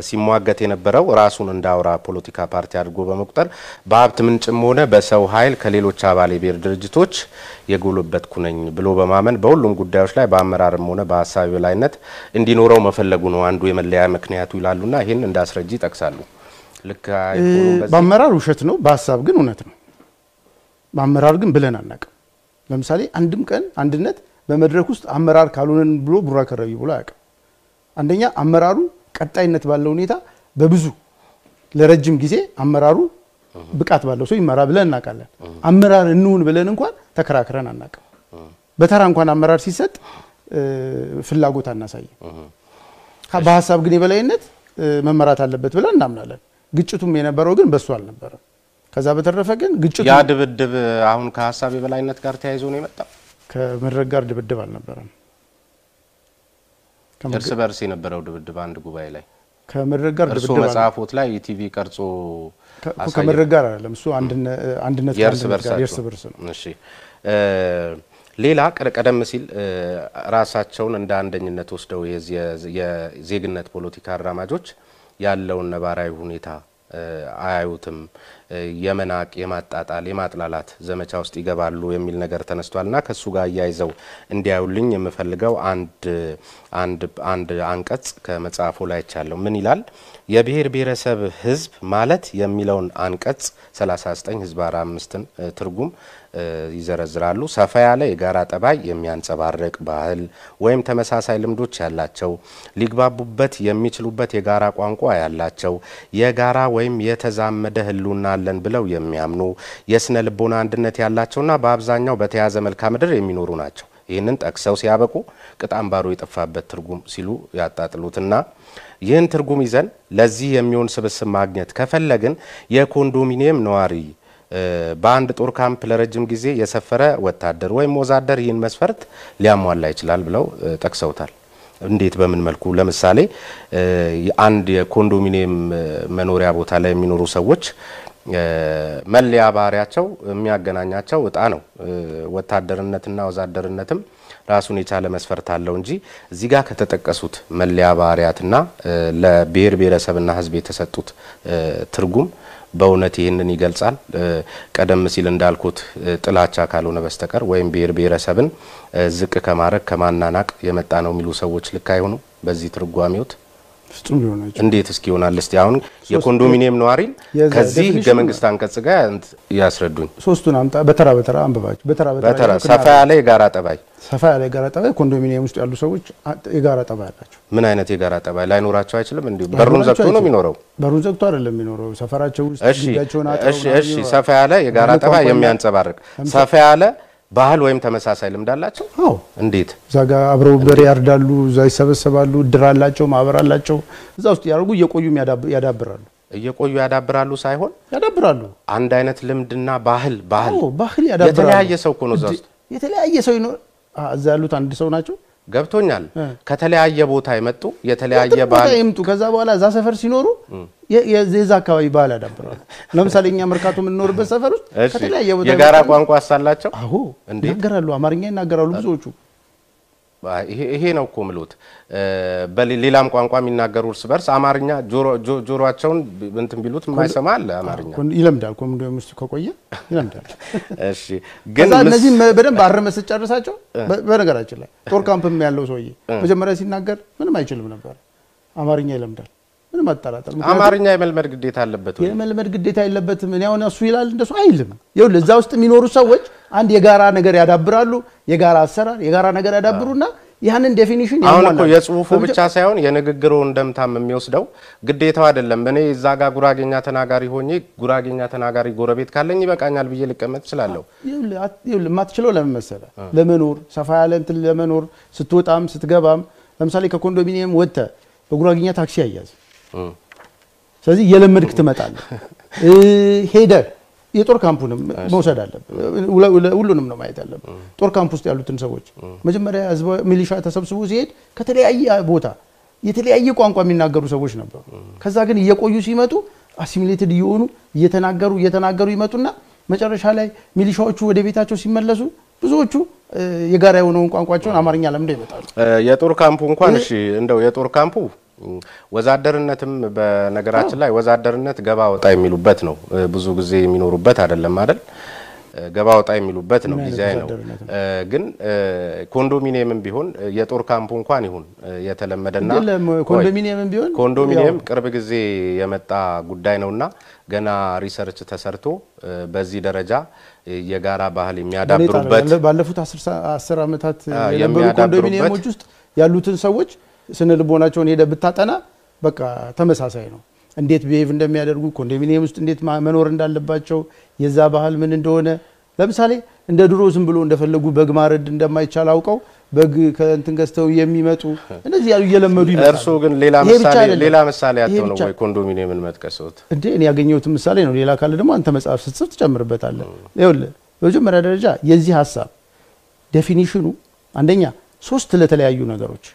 ሲሟገት የነበረው ራሱን እንዳውራ ፖለቲካ ፓርቲ አድርጎ በመቁጠር በሀብት ምንጭም ሆነ በሰው ኃይል ከሌሎች አባል የብሔር ድርጅቶች የጎለበትኩ ነኝ ብሎ በማመን በሁሉም ጉዳዮች ላይ በአመራርም ሆነ በሐሳብ በላይነት እንዲኖረው መፈለጉ ነው አንዱ የመለያ ምክንያቱ ይላሉና ይሄን እንዳስረጂ ይጠቅሳሉ ልክ አይሆንም በአመራር ውሸት ነው በሐሳብ ግን እውነት ነው በአመራር ግን ብለን አናቀም ለምሳሌ አንድም ቀን አንድነት በመድረክ ውስጥ አመራር ካልሆነን ብሎ ቡራ ከረዩ ብሎ ያቀም አንደኛ አመራሩ ቀጣይነት ባለው ሁኔታ በብዙ ለረጅም ጊዜ አመራሩ ብቃት ባለው ሰው ይመራ ብለን እናቃለን አመራር እንሁን ብለን እንኳን ተከራክረን አናቀም በተራ እንኳን አመራር ሲሰጥ ፍላጎት አናሳይ በሐሳብ ግን የበላይነት መመራት አለበት ብለን እናምናለን ግጭቱም የነበረው ግን በሱ አልነበረ ከዛ በተረፈ ግን ግጭቱ ያ ድብድብ አሁን ከሐሳብ የበላይነት ጋር ተያይዞ ነው የመጣው ከመድረክ ጋር ድብድብ አልነበረም እርስ በርስ የነበረው ድብድብ አንድ ጉባኤ ላይ ከመድረክ ጋር ድብድብ መጽሐፎት ላይ ኢቲቪ ቀርጾ ከመድረክ ጋር አይደለም እሱ አንድነት የርስ በርስ ነው እሺ ሌላ ቀደም ሲል ራሳቸውን እንደ አንደኝነት ወስደው የዜግነት ፖለቲካ አራማጆች ያለውን ነባራዊ ሁኔታ አያዩትም የመናቅ የማጣጣል የማጥላላት ዘመቻ ውስጥ ይገባሉ የሚል ነገር ተነስቷልና ከሱ ጋር ያይዘው እንዲያዩልኝ የምፈልገው አንድ አንቀጽ ከመጽሐፉ ላይ ቻለው ምን ይላል የብሔር ብሔረሰብ ህዝብ ማለት የሚለውን አንቀጽ 39 ህዝብ 45ን ትርጉም ይዘረዝራሉ ሰፋ ያለ የጋራ ጠባይ የሚያንጸባርቅ ባህል ወይም ተመሳሳይ ልምዶች ያላቸው ሊግባቡበት የሚችሉበት የጋራ ቋንቋ ያላቸው የጋራ ወይም የተዛመደ ህልውና አለን ብለው የሚያምኑ የስነ ልቦና አንድነት ያላቸውና በአብዛኛው በተያዘ መልክዓ ምድር የሚኖሩ ናቸው። ይህንን ጠቅሰው ሲያበቁ ቅጣምባሩ የጠፋበት ትርጉም ሲሉ ያጣጥሉትና ይህን ትርጉም ይዘን ለዚህ የሚሆን ስብስብ ማግኘት ከፈለግን የኮንዶሚኒየም ነዋሪ በአንድ ጦር ካምፕ ለረጅም ጊዜ የሰፈረ ወታደር ወይም ወዛደር ይህን መስፈርት ሊያሟላ ይችላል ብለው ጠቅሰውታል። እንዴት በምን መልኩ? ለምሳሌ አንድ የኮንዶሚኒየም መኖሪያ ቦታ ላይ የሚኖሩ ሰዎች መለያ ባህሪያቸው የሚያገናኛቸው እጣ ነው። ወታደርነትና ወዛደርነትም ራሱን የቻለ መስፈርት አለው እንጂ እዚህ ጋር ከተጠቀሱት መለያ ባህሪያትና ለብሔር ብሔረሰብና ሕዝብ የተሰጡት ትርጉም በእውነት ይህንን ይገልጻል? ቀደም ሲል እንዳልኩት ጥላቻ ካልሆነ በስተቀር ወይም ብሔር ብሔረሰብን ዝቅ ከማረክ ከማናናቅ የመጣ ነው የሚሉ ሰዎች ልክ አይሆኑ በዚህ ትርጓሜውት? ፍጹም ሊሆን አይችልም። እንዴት እስኪ ይሆናል? እስቲ አሁን የኮንዶሚኒየም ነዋሪን ከዚህ ህገ መንግስት አንቀጽ ጋር ያስረዱኝ። ሶስቱን አምጣ በተራ በተራ አንብባችሁ። በተራ ሰፋ ያለ የጋራ ጠባይ ኮንዶሚኒየም ውስጥ ያሉ ሰዎች የጋራ ጠባይ አላቸው። ምን አይነት የጋራ ጠባይ ላይኖራቸው አይችልም? እንዴ በሩን ዘግቶ ነው የሚኖረው? በሩን ዘግቶ አይደለም የሚኖረው፣ ሰፈራቸው ውስጥ ዲጋቸውን አጥረው። እሺ ሰፋ ያለ የጋራ ጠባይ የሚያንጸባርቅ ሰፋ ያለ ባህል ወይም ተመሳሳይ ልምድ አላቸው? አዎ። እንዴት? ዛጋ አብረው በሬ ያርዳሉ፣ እዛ ይሰበሰባሉ፣ ድር አላቸው፣ ማህበር አላቸው። እዛ ውስጥ ያርጉ እየቆዩ ያዳብራሉ። እየቆዩ ያዳብራሉ ሳይሆን ያዳብራሉ። አንድ አይነት ልምድና ባህል ያዳብራሉ። የተለያየ ሰው እኮ ነው እዛ ውስጥ የተለያየ ሰው ነው። እዛ ያሉት አንድ ሰው ናቸው። ገብቶኛል። ከተለያየ ቦታ የመጡ የተለያየ ባህል ይምጡ። ከዛ በኋላ እዛ ሰፈር ሲኖሩ የዛ አካባቢ ባህል ያዳብራሉ። ለምሳሌ እኛ መርካቶ የምንኖርበት ሰፈር ውስጥ ከተለያየ ቦታ የጋራ ቋንቋ አሳላቸው። አዎ ይናገራሉ። አማርኛ ይናገራሉ ብዙዎቹ። ይሄ ነው እኮ ምሉት። በሌላም ቋንቋ የሚናገሩ እርስ በርስ አማርኛ ጆሮአቸውን እንትን ቢሉት የማይሰማ አለ። አማርኛ ይለምዳል። ኮንዶሚኒየም ውስጥ ከቆየ ይለምዳል። እሺ ግን እነዚህ በደንብ አረመስ ጨርሳቸው። በነገራችን ላይ ጦር ካምፕም ያለው ሰውዬ መጀመሪያ ሲናገር ምንም አይችልም ነበር። አማርኛ ይለምዳል። ምንም አጣላጣል። አማርኛ የመልመድ ግዴታ አለበት ወይ? የመልመድ ግዴታ የለበትም። እኔ አሁን እሱ ይላል እንደሱ አይልም። ይኸውልህ እዛ ውስጥ የሚኖሩ ሰዎች አንድ የጋራ ነገር ያዳብራሉ። የጋራ አሰራር፣ የጋራ ነገር ያዳብሩና ያንን ዴፊኒሽን አሁን እኮ የጽሁፉ ብቻ ሳይሆን የንግግሩ እንደምታም የሚወስደው ግዴታው አይደለም። እኔ እዛ ጋር ጉራጌኛ ተናጋሪ ሆኜ ጉራጌኛ ተናጋሪ ጎረቤት ካለኝ ይበቃኛል ብዬ ልቀመጥ እችላለሁ። ይኸውልህ የማትችለው ለምን መሰለህ? ለመኖር ሰፋ ያለ እንትን ለመኖር ስትወጣም ስትገባም፣ ለምሳሌ ከኮንዶሚኒየም ወጥተህ በጉራጌኛ ታክሲ አያዝ። ስለዚህ የለመድክ ትመጣለህ። ሄደህ የጦር ካምፑንም መውሰድ አለብህ። ሁሉንም ነው ማየት ያለብህ። ጦር ካምፕ ውስጥ ያሉትን ሰዎች መጀመሪያ ህዝብ ሚሊሻ ተሰብስቦ ሲሄድ ከተለያየ ቦታ የተለያየ ቋንቋ የሚናገሩ ሰዎች ነበሩ። ከዛ ግን እየቆዩ ሲመጡ አሲሚሌትድ እየሆኑ እየተናገሩ ይመጡና መጨረሻ ላይ ሚሊሻዎቹ ወደ ቤታቸው ሲመለሱ ብዙዎቹ የጋራ የሆነውን ቋንቋቸውን አማርኛ ለምደው ይመጣሉ። የጦር ካምፑ እንኳን እሺ እንደው የጦር ካምፑ ወዛደርነትም በነገራችን ላይ ወዛደርነት ገባ ወጣ የሚሉበት ነው። ብዙ ጊዜ የሚኖሩበት አይደለም አይደል? ገባ ወጣ የሚሉበት ነው፣ ጊዜያዊ ነው። ግን ኮንዶሚኒየምም ቢሆን የጦር ካምፑ እንኳን ይሁን የተለመደና ኮንዶሚኒየም ቅርብ ጊዜ የመጣ ጉዳይ ነውና ገና ሪሰርች ተሰርቶ በዚህ ደረጃ የጋራ ባህል የሚያዳብሩበት ባለፉት 10 አመታት የነበሩ ኮንዶሚኒየሞች ውስጥ ያሉትን ሰዎች ስነ ልቦናቸውን ሄደ ብታጠና በቃ ተመሳሳይ ነው። እንዴት ቢሄቭ እንደሚያደርጉ ኮንዶሚኒየም ውስጥ እንዴት መኖር እንዳለባቸው የዛ ባህል ምን እንደሆነ ለምሳሌ እንደ ድሮ ዝም ብሎ እንደፈለጉ በግ ማረድ እንደማይቻል አውቀው በግ ከእንትን ገዝተው የሚመጡ እንደዚህ ያሉ እየለመዱ ይመጣሉ። እርሱ ግን ሌላ ምሳሌ ያተው ነው ወይ ኮንዶሚኒየምን መጥቀስዎት? እንዴ እኔ ያገኘሁት ምሳሌ ነው። ሌላ ካለ ደግሞ አንተ መጽሐፍ ስትጽፍ ትጨምርበታለህ። ይኸውልህ በመጀመሪያ ደረጃ የዚህ ሐሳብ ዴፊኒሽኑ አንደኛ 3 ለተለያዩ ነገሮች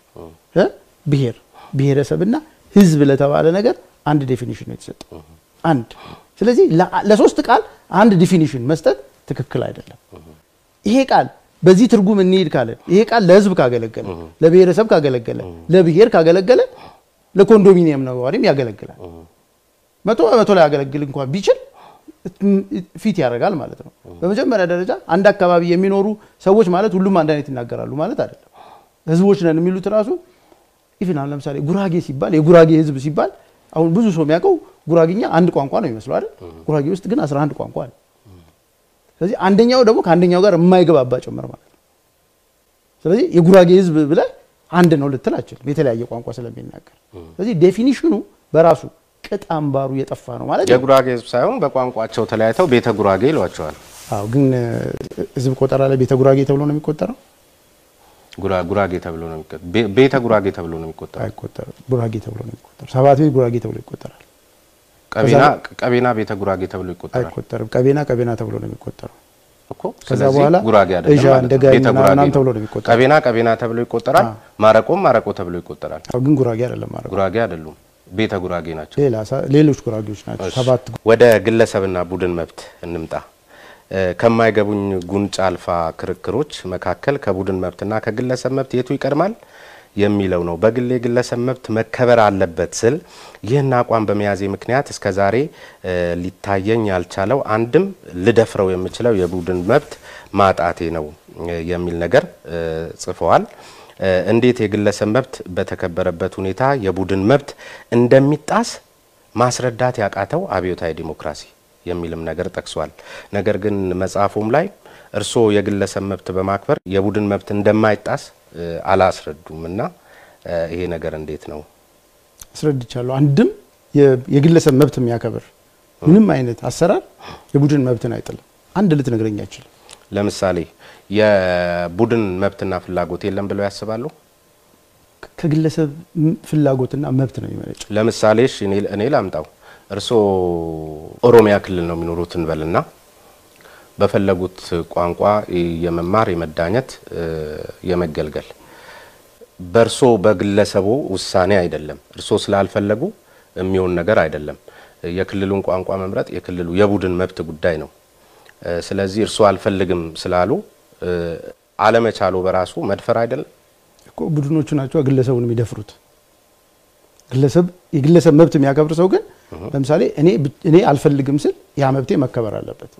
ብሔር ብሔረሰብና ህዝብ ለተባለ ነገር አንድ ዴፊኒሽን ነው የተሰጠው። አንድ ስለዚህ ለ3 ቃል አንድ ዴፊኒሽን መስጠት ትክክል አይደለም። ይሄ ቃል በዚህ ትርጉም እንሂድ ካለ ይሄ ቃል ለህዝብ ካገለገለ፣ ለብሔረሰብ ካገለገለ፣ ለብሔር ካገለገለ ለኮንዶሚኒየም ነዋሪም ያገለግላል። 100% ላይ ያገለግል እንኳን ቢችል ፊት ያደርጋል ማለት ነው። በመጀመሪያ ደረጃ አንድ አካባቢ የሚኖሩ ሰዎች ማለት ሁሉም አንድ አይነት ይናገራሉ ማለት አይደለም። ህዝቦች ነን የሚሉት ራሱ ኢቭን ለምሳሌ ጉራጌ ሲባል የጉራጌ ህዝብ ሲባል አሁን ብዙ ሰው የሚያውቀው ጉራጌኛ አንድ ቋንቋ ነው ይመስላል አይደል? ጉራጌ ውስጥ ግን 11 ቋንቋ አለ። ስለዚህ አንደኛው ደግሞ ከአንደኛው ጋር የማይገባባ ጭምር ማለት ነው። ስለዚህ የጉራጌ ህዝብ ብለህ አንድ ነው ልትል አትችልም የተለያየ ቋንቋ ስለሚናገር። ስለዚህ ዴፊኒሽኑ በራሱ ቅጥ አምባሩ የጠፋ ነው ማለት የጉራጌ ህዝብ ሳይሆን በቋንቋቸው ተለያይተው ቤተ ጉራጌ ይሏቸዋል። አዎ ግን ህዝብ ቆጠራ ላይ ቤተ ጉራጌ ተብሎ ነው የሚቆጠረው? ጉራጌ ተብሎ ነው የሚቆጠረው። ቤተ ጉራጌ ተብሎ ነው የሚቆጠረው። አይቆጠርም። ጉራጌ ተብሎ ነው የሚቆጠረው። ሰባት ቤት ጉራጌ ተብሎ ይቆጠራል። ቀቤና ቤተ ጉራጌ ተብሎ ይቆጠራል። አይቆጠርም። ቀቤና ተብሎ ነው የሚቆጠረው እኮ። ከዛ በኋላ ጉራጌ አይደለም ቤተ ጉራጌ ተብሎ ነው የሚቆጠረው። ቀቤና ተብሎ ይቆጠራል። ማረቆ ተብሎ ይቆጠራል። አዎ ግን ጉራጌ አይደለም። ጉራጌ አይደሉም። ቤተ ጉራጌ ናቸው። ሌሎች ጉራጌዎች ናቸው። ሰባት ወደ ግለሰብና ቡድን መብት እንምጣ። ከማይገቡኝ ጉንጭ አልፋ ክርክሮች መካከል ከቡድን መብትና ከግለሰብ መብት የቱ ይቀድማል የሚለው ነው። በግል የግለሰብ መብት መከበር አለበት ስል ይህን አቋም በመያዜ ምክንያት እስከዛሬ ሊታየኝ ያልቻለው አንድም ልደፍረው የምችለው የቡድን መብት ማጣቴ ነው የሚል ነገር ጽፈዋል። እንዴት የግለሰብ መብት በተከበረበት ሁኔታ የቡድን መብት እንደሚጣስ ማስረዳት ያቃተው አብዮታዊ ዲሞክራሲ የሚልም ነገር ጠቅሷል። ነገር ግን መጽሐፉም ላይ እርሶ የግለሰብ መብት በማክበር የቡድን መብት እንደማይጣስ አላስረዱምና ይሄ ነገር እንዴት ነው? አስረድቻለሁ። አንድም የግለሰብ መብት የሚያከብር ምንም አይነት አሰራር የቡድን መብትን አይጥልም። አንድ ልትነግረኝ አይችልም። ለምሳሌ የቡድን መብትና ፍላጎት የለም ብለው ያስባሉ? ከግለሰብ ፍላጎትና መብት ነው የሚመነጨው። ለምሳሌ እኔ ላምጣው። እርሶ ኦሮሚያ ክልል ነው የሚኖሩት እንበልና በፈለጉት ቋንቋ የመማር የመዳኘት የመገልገል በርሶ በግለሰቡ ውሳኔ አይደለም። እርሶ ስላልፈለጉ የሚሆን ነገር አይደለም። የክልሉን ቋንቋ መምረጥ የክልሉ የቡድን መብት ጉዳይ ነው። ስለዚህ እርሶ አልፈልግም ስላሉ አለመቻሉ በራሱ መድፈር አይደለም እኮ። ቡድኖቹ ናቸው ግለሰቡን የሚደፍሩት። የግለሰብ መብት የሚያከብር ሰው ግን ለምሳሌ እኔ አልፈልግም ስል ያ መብቴ መከበር አለበት።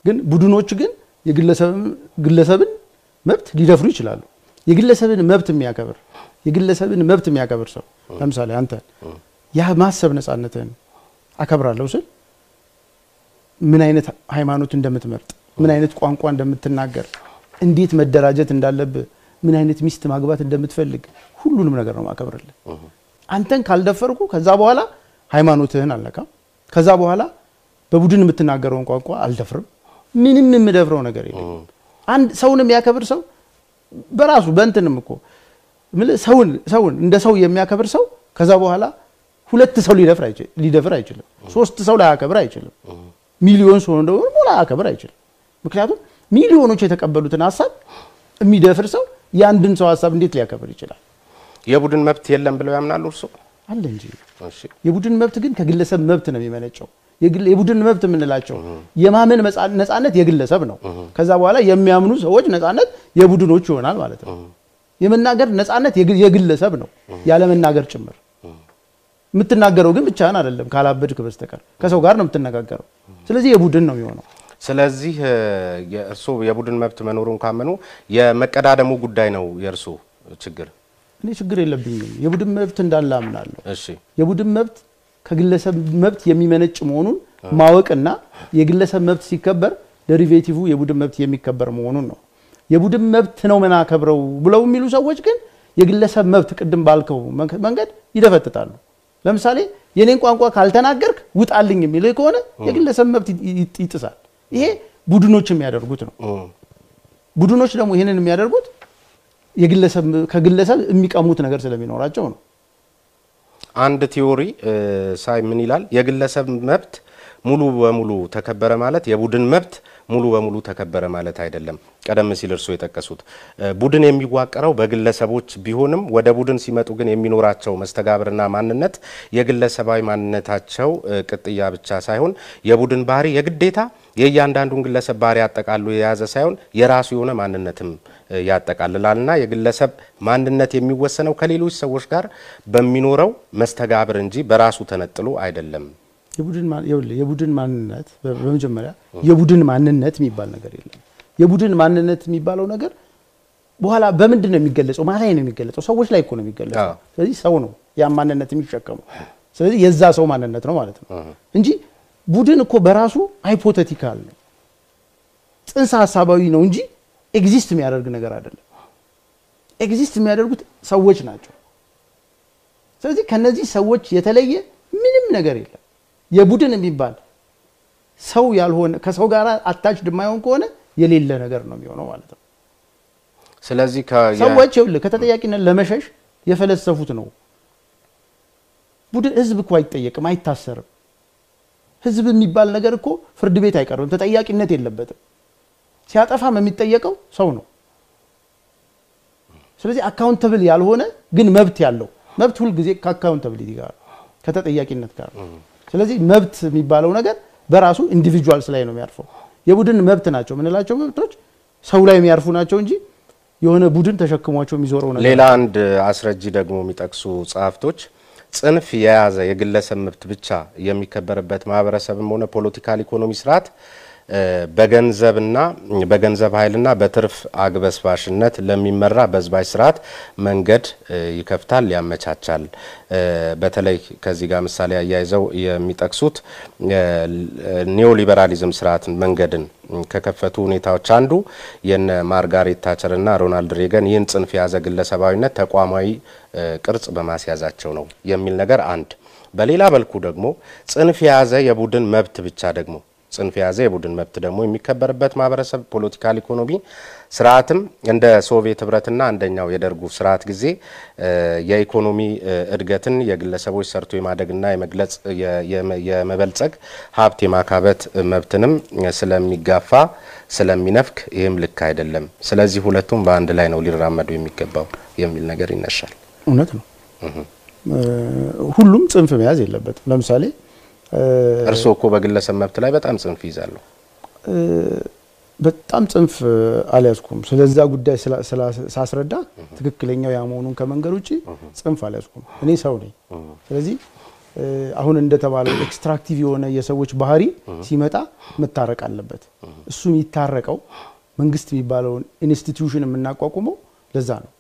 ግን ቡድኖች ግን የግለሰብን መብት ሊደፍሩ ይችላሉ። የግለሰብን መብት የሚያከብር ሰው ለምሳሌ አንተ ያ ማሰብ ነፃነትን አከብራለሁ ስል ምን አይነት ሃይማኖት እንደምትመርጥ፣ ምን አይነት ቋንቋ እንደምትናገር፣ እንዴት መደራጀት እንዳለብህ፣ ምን አይነት ሚስት ማግባት እንደምትፈልግ ሁሉንም ነገር ነው ማከብርልህ። አንተን ካልደፈርኩ ከዛ በኋላ ሃይማኖትህን አልነካም። ከዛ በኋላ በቡድን የምትናገረውን ቋንቋ አልደፍርም። ምንም የምደፍረው ነገር የለም። አንድ ሰውን የሚያከብር ሰው በራሱ በእንትንም እኮ ሰውን እንደ ሰው የሚያከብር ሰው ከዛ በኋላ ሁለት ሰው ሊደፍር አይችልም። ሶስት ሰው ላያከብር አይችልም። ሚሊዮን ሰው እንደው ላያከብር አይችልም። ምክንያቱም ሚሊዮኖች የተቀበሉትን ሐሳብ የሚደፍር ሰው የአንድን ሰው ሐሳብ እንዴት ሊያከብር ይችላል? የቡድን መብት የለም ብለው ያምናሉ እርሶ? አለ እንጂ። የቡድን መብት ግን ከግለሰብ መብት ነው የሚመነጨው። የቡድን መብት የምንላቸው የማመን ነፃነት የግለሰብ ነው። ከዛ በኋላ የሚያምኑ ሰዎች ነፃነት የቡድኖች ይሆናል ማለት ነው። የመናገር ነፃነት የግለሰብ ነው ያለ መናገር ጭምር። የምትናገረው ግን ብቻህን አይደለም ካላበድክ በስተቀር ከሰው ጋር ነው የምትነጋገረው። ስለዚህ የቡድን ነው የሚሆነው። ስለዚህ የእርሶ የቡድን መብት መኖሩን ካመኑ የመቀዳደሙ ጉዳይ ነው የእርሶ ችግር። እኔ ችግር የለብኝም። የቡድን መብት እንዳለ አምናለሁ። እሺ የቡድን መብት ከግለሰብ መብት የሚመነጭ መሆኑን ማወቅና የግለሰብ መብት ሲከበር ዴሪቬቲቭ የቡድን መብት የሚከበር መሆኑን ነው። የቡድን መብት ነው መናከብረው ብለው የሚሉ ሰዎች ግን የግለሰብ መብት ቅድም ባልከው መንገድ ይደፈጥጣሉ። ለምሳሌ የኔን ቋንቋ ካልተናገርክ ውጣልኝ የሚለው ከሆነ የግለሰብ መብት ይጥሳል። ይሄ ቡድኖች የሚያደርጉት ነው። ቡድኖች ደግሞ ይሄንን የሚያደርጉት ከግለሰብ የሚቀሙት ነገር ስለሚኖራቸው ነው። አንድ ቲዮሪ ሳይ ምን ይላል? የግለሰብ መብት ሙሉ በሙሉ ተከበረ ማለት የቡድን መብት ሙሉ በሙሉ ተከበረ ማለት አይደለም። ቀደም ሲል እርሶ የጠቀሱት ቡድን የሚዋቀረው በግለሰቦች ቢሆንም ወደ ቡድን ሲመጡ ግን የሚኖራቸው መስተጋብርና ማንነት የግለሰባዊ ማንነታቸው ቅጥያ ብቻ ሳይሆን የቡድን ባህሪ የግዴታ የእያንዳንዱን ግለሰብ ባህሪ ያጠቃሉ የያዘ ሳይሆን የራሱ የሆነ ማንነትም ያጠቃልላልና የግለሰብ ማንነት የሚወሰነው ከሌሎች ሰዎች ጋር በሚኖረው መስተጋብር እንጂ በራሱ ተነጥሎ አይደለም። የቡድን ማንነት በመጀመሪያ የቡድን ማንነት የሚባል ነገር የለም። የቡድን ማንነት የሚባለው ነገር በኋላ በምንድን ነው የሚገለጸው? ማለት ነው የሚገለጸው ሰዎች ላይ እኮ ነው የሚገለጸው። ስለዚህ ሰው ነው ያ ማንነት የሚሸከመው። ስለዚህ የዛ ሰው ማንነት ነው ማለት ነው እንጂ ቡድን እኮ በራሱ ሃይፖቴቲካል ነው፣ ጽንሰ ሐሳባዊ ነው እንጂ ኤግዚስት የሚያደርግ ነገር አይደለም። ኤግዚስት የሚያደርጉት ሰዎች ናቸው። ስለዚህ ከነዚህ ሰዎች የተለየ ምንም ነገር የለም የቡድን የሚባል ሰው ያልሆነ ከሰው ጋር አታች ድማይሆን ከሆነ የሌለ ነገር ነው የሚሆነው ማለት ነው ስለዚህ ሰዎች ይኸውልህ ከተጠያቂነት ለመሸሽ የፈለሰፉት ነው ቡድን ህዝብ እኮ አይጠየቅም አይታሰርም ህዝብ የሚባል ነገር እኮ ፍርድ ቤት አይቀርም ተጠያቂነት የለበትም ሲያጠፋም የሚጠየቀው ሰው ነው ስለዚህ አካውንታብል ያልሆነ ግን መብት ያለው መብት ሁሉ ጊዜ ከአካውንታቢሊቲ ጋር ከተጠያቂነት ጋር ስለዚህ መብት የሚባለው ነገር በራሱ ኢንዲቪጁዋልስ ላይ ነው የሚያርፈው የቡድን መብት ናቸው ምንላቸው መብቶች ሰው ላይ የሚያርፉ ናቸው እንጂ የሆነ ቡድን ተሸክሟቸው የሚዞረው ነገር ሌላ አንድ አስረጂ ደግሞ የሚጠቅሱ ጻፍቶች ጽንፍ የያዘ የግለሰብ መብት ብቻ የሚከበርበት ማህበረሰብም ሆነ ፖለቲካል ኢኮኖሚ ስርዓት በገንዘብ ኃይልና በትርፍ አግበስባሽነት ለሚመራ በዝባይ ስርዓት መንገድ ይከፍታል ያመቻቻል በተለይ ከዚህ ጋር ምሳሌ ያያይዘው የሚጠቅሱት ኒዮ ሊበራሊዝም ስርዓትን መንገድን ከከፈቱ ሁኔታዎች አንዱ የነ ማርጋሬት ታቸርና ሮናልድ ሬገን ይህን ጽንፍ የያዘ ግለሰባዊነት ተቋማዊ ቅርጽ በማስያዛቸው ነው የሚል ነገር አንድ በሌላ መልኩ ደግሞ ጽንፍ የያዘ የቡድን መብት ብቻ ደግሞ ጽንፍ የያዘ የቡድን መብት ደግሞ የሚከበርበት ማህበረሰብ ፖለቲካል ኢኮኖሚ ስርዓትም እንደ ሶቪየት ህብረትና አንደኛው የደርጉ ስርዓት ጊዜ የኢኮኖሚ እድገትን የግለሰቦች ሰርቶ የማደግና የመግለጽ የመበልጸግ ሀብት የማካበት መብትንም ስለሚጋፋ ስለሚነፍክ ይሄም ልክ አይደለም ስለዚህ ሁለቱም በአንድ ላይ ነው ሊራመዱ የሚገባው የሚል ነገር ይነሻል እውነት ነው ሁሉም ጽንፍ መያዝ የለበትም ለምሳሌ እርሶ እኮ በግለሰብ መብት ላይ በጣም ጽንፍ ይዛሉ በጣም ጽንፍ አልያዝኩም ስለዛ ጉዳይ ሳስረዳ ትክክለኛው ያመሆኑን ከመንገር ውጪ ጽንፍ አልያዝኩም እኔ ሰው ነኝ ስለዚህ አሁን እንደተባለው ኤክስትራክቲቭ የሆነ የሰዎች ባህሪ ሲመጣ መታረቅ አለበት እሱም ይታረቀው መንግስት የሚባለው ኢንስቲትዩሽን የምናቋቁመው ለዛ ነው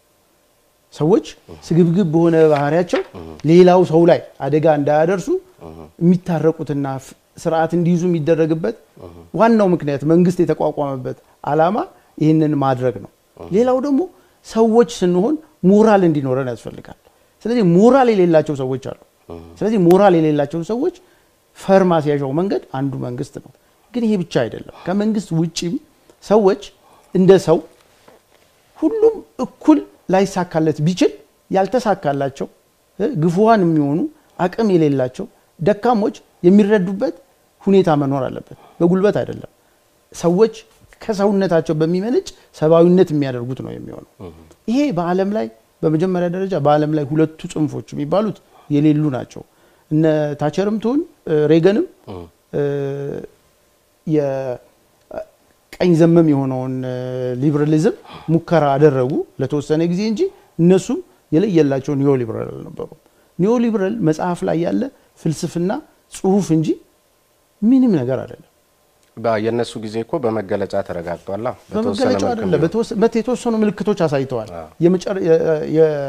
ሰዎች ስግብግብ በሆነ ባህሪያቸው ሌላው ሰው ላይ አደጋ እንዳያደርሱ የሚታረቁትና ስርዓት እንዲይዙ የሚደረግበት ዋናው ምክንያት መንግስት የተቋቋመበት አላማ ይሄንን ማድረግ ነው ሌላው ደግሞ ሰዎች ስንሆን ሞራል እንዲኖረን ያስፈልጋል ስለዚህ ሞራል የሌላቸው ሰዎች አሉ ስለዚህ ሞራል የሌላቸው ሰዎች ፈርማስ ያዣው መንገድ አንዱ መንግስት ነው ግን ይሄ ብቻ አይደለም ከመንግስት ውጪም ሰዎች እንደ ሰው ሁሉም እኩል ላይሳካለት ቢችል ያልተሳካላቸው ግፉዋን የሚሆኑ አቅም የሌላቸው ደካሞች የሚረዱበት ሁኔታ መኖር አለበት በጉልበት አይደለም ሰዎች ከሰውነታቸው በሚመነጭ ሰባዊነት የሚያደርጉት ነው የሚሆነው ይሄ በአለም ላይ በመጀመሪያ ደረጃ በአለም ላይ ሁለቱ ጽንፎች የሚባሉት የሌሉ ናቸው እነ ታቸርም ተውን ሬገንም የቀኝ ዘመም የሆነውን ሊበራሊዝም ሙከራ አደረጉ ለተወሰነ ጊዜ እንጂ እነሱም የለየላቸው ኒዮ ሊበራል ነበሩ ኒዮ ሊበራል መጽሐፍ ላይ ያለ ፍልስፍና ጽሁፍ እንጂ ምንም ነገር አይደለም የነሱ ጊዜ እኮ በመገለጫ ተረጋግጧል በመገለጫ አይደለም በተወሰኑ ምልክቶች አሳይተዋል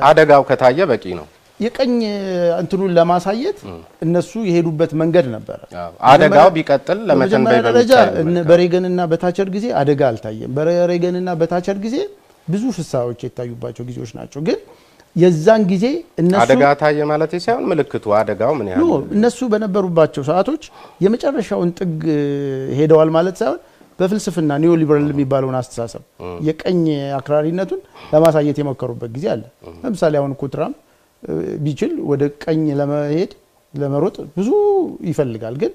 አደጋው ከታየ በቂ ነው የቀኝ እንትኑን ለማሳየት እነሱ የሄዱበት መንገድ ነበር አደጋው ቢቀጥል ለመተንበይ በሬገንና በታቸር ጊዜ አደጋ አልታየም በሬገንና በታቸር ጊዜ ብዙ ፍሳዎች የታዩባቸው ጊዜዎች ናቸው ግን የዛን ጊዜ እነሱ አደጋ ታየ ማለት ሳይሆን ምልክቱ አደጋው ምን ያህል እነሱ በነበሩባቸው ሰዓቶች የመጨረሻውን ጥግ ሄደዋል ማለት ሳይሆን በፍልስፍና ኒዮ ሊበራል የሚባለውን አስተሳሰብ የቀኝ አክራሪነቱን ለማሳየት የሞከሩበት ጊዜ አለ ለምሳሌ አሁን ኩትራም ቢችል ወደ ቀኝ ለመሄድ ለመሮጥ ብዙ ይፈልጋል ግን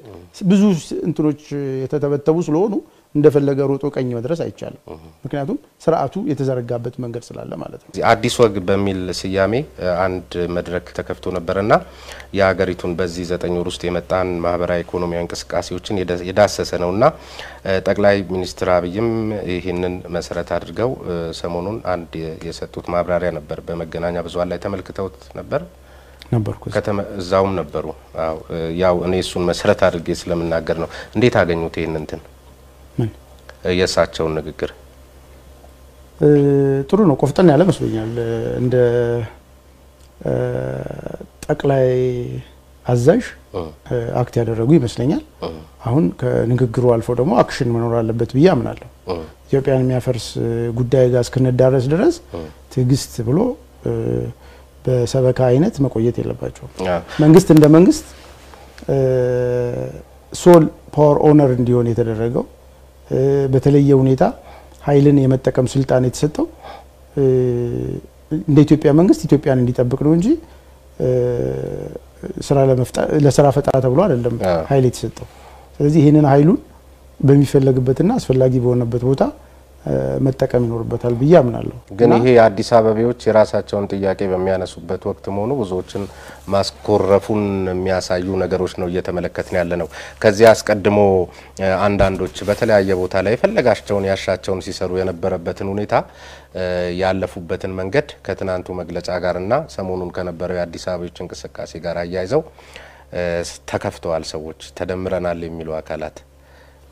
ብዙ እንትኖች የተተበተቡ ስለሆኑ እንደፈለገ ሮጦ ቀኝ መድረስ አይቻልም ምክንያቱም ስርዓቱ የተዘረጋበት መንገድ ስላለ ማለት ነው አዲስ ወግ በሚል ሲያሜ አንድ መድረክ ተከፍቶ ነበርና የሀገሪቱን በዚህ 9 ወር ውስጥ የመጣን ማህበራዊ ኢኮኖሚያዊ እንቅስቃሴዎችን የዳሰሰ ነውና ጠቅላይ ሚኒስትር አብይም ይህንን መሰረት አድርገው ሰሞኑን አንድ የሰጡት ማብራሪያ ነበር በመገናኛ ብዙሃን ላይ ተመልክተውት ነበርኩ እዛውም ነበሩ ያው እኔ እሱን መሰረት አድርጌ ስለምናገር ነው እንዴት አገኙት ይሄንን የሳቸውን ንግግር ጥሩ ነው ቆፍጠን ያለ መስሎኛል እንደ ጠቅላይ አዛዥ አክት ያደረጉ ይመስለኛል አሁን ከንግግሩ አልፎ ደግሞ አክሽን መኖር አለበት ብዬ አምናለሁ ኢትዮጵያን የሚያፈርስ ጉዳይ ጋር እስከነዳረስ ድረስ ትግስት ብሎ በሰበካ አይነት መቆየት የለባቸው መንግስት እንደ መንግስት ሶል ፓወር ኦነር እንዲሆን የተደረገው በተለየ ሁኔታ ኃይልን የመጠቀም ስልጣን የተሰጠው እንደ ኢትዮጵያ መንግስት ኢትዮጵያን እንዲጠብቅ ነው እንጂ ስራ ለስራ ፈጠራ ተብሎ አይደለም ኃይል የተሰጠው። ስለዚህ ይሄንን ኃይሉን በሚፈለግበትና አስፈላጊ በሆነበት ቦታ መጠቀም ይኖርበታል ብዬ አምናለሁ። ግን ይሄ አዲስ አበባዎች የራሳቸውን ጥያቄ በሚያነሱበት ወቅት መሆኑ ብዙዎችን ማስኮረፉን የሚያሳዩ ነገሮች ነው እየተመለከትን ያለ ነው። ከዚህ አስቀድሞ አንዳንዶች በተለያየ ቦታ ላይ ፈለጋቸውን ያሻቸውን ሲሰሩ የነበረበትን ሁኔታ ያለፉበትን መንገድ ከትናንቱ መግለጫ ጋርና ሰሞኑን ከነበረው የአዲስ አበባዎች እንቅስቃሴ ጋር አያይዘው ተከፍተዋል። ሰዎች ተደምረናል የሚሉ አካላት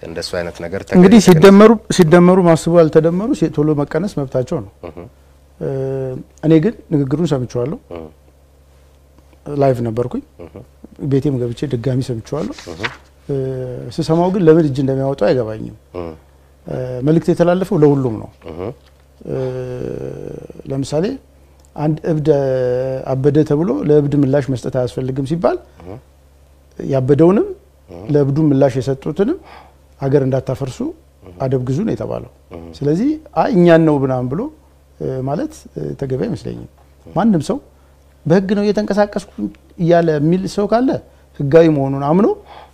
እንደሱ አይነት ነገር እንግዲህ ሲደመሩ ማስቡ ያልተደመሩ ቶሎ መቀነስ መብታቸው ነው። እኔ ግን ንግግሩን ሰምቻለሁ። ላይቭ ነበርኩኝ። ቤቴም ገብቼ ድጋሚ ሰምቻለሁ። ስሰማው ግን ለምን እጅ እንደሚያወጣው አይገባኝም። መልእክት የተላለፈው ለሁሉም ነው። ለምሳሌ አንድ እብድ አበደ ተብሎ ለእብድ ምላሽ መስጠት አያስፈልግም ሲባል ያበደውንም ለእብዱ ምላሽ የሰጡትንም ሀገር እንዳታፈርሱ አደብ ግዙ ነው የተባለው። ስለዚህ እኛን ነው ብናም ብሎ ማለት ተገቢ አይመስለኝም። ማንም ሰው በህግ ነው እየተንቀሳቀስኩ እያለ የሚል ሰው ካለ ህጋዊ መሆኑን አምኖ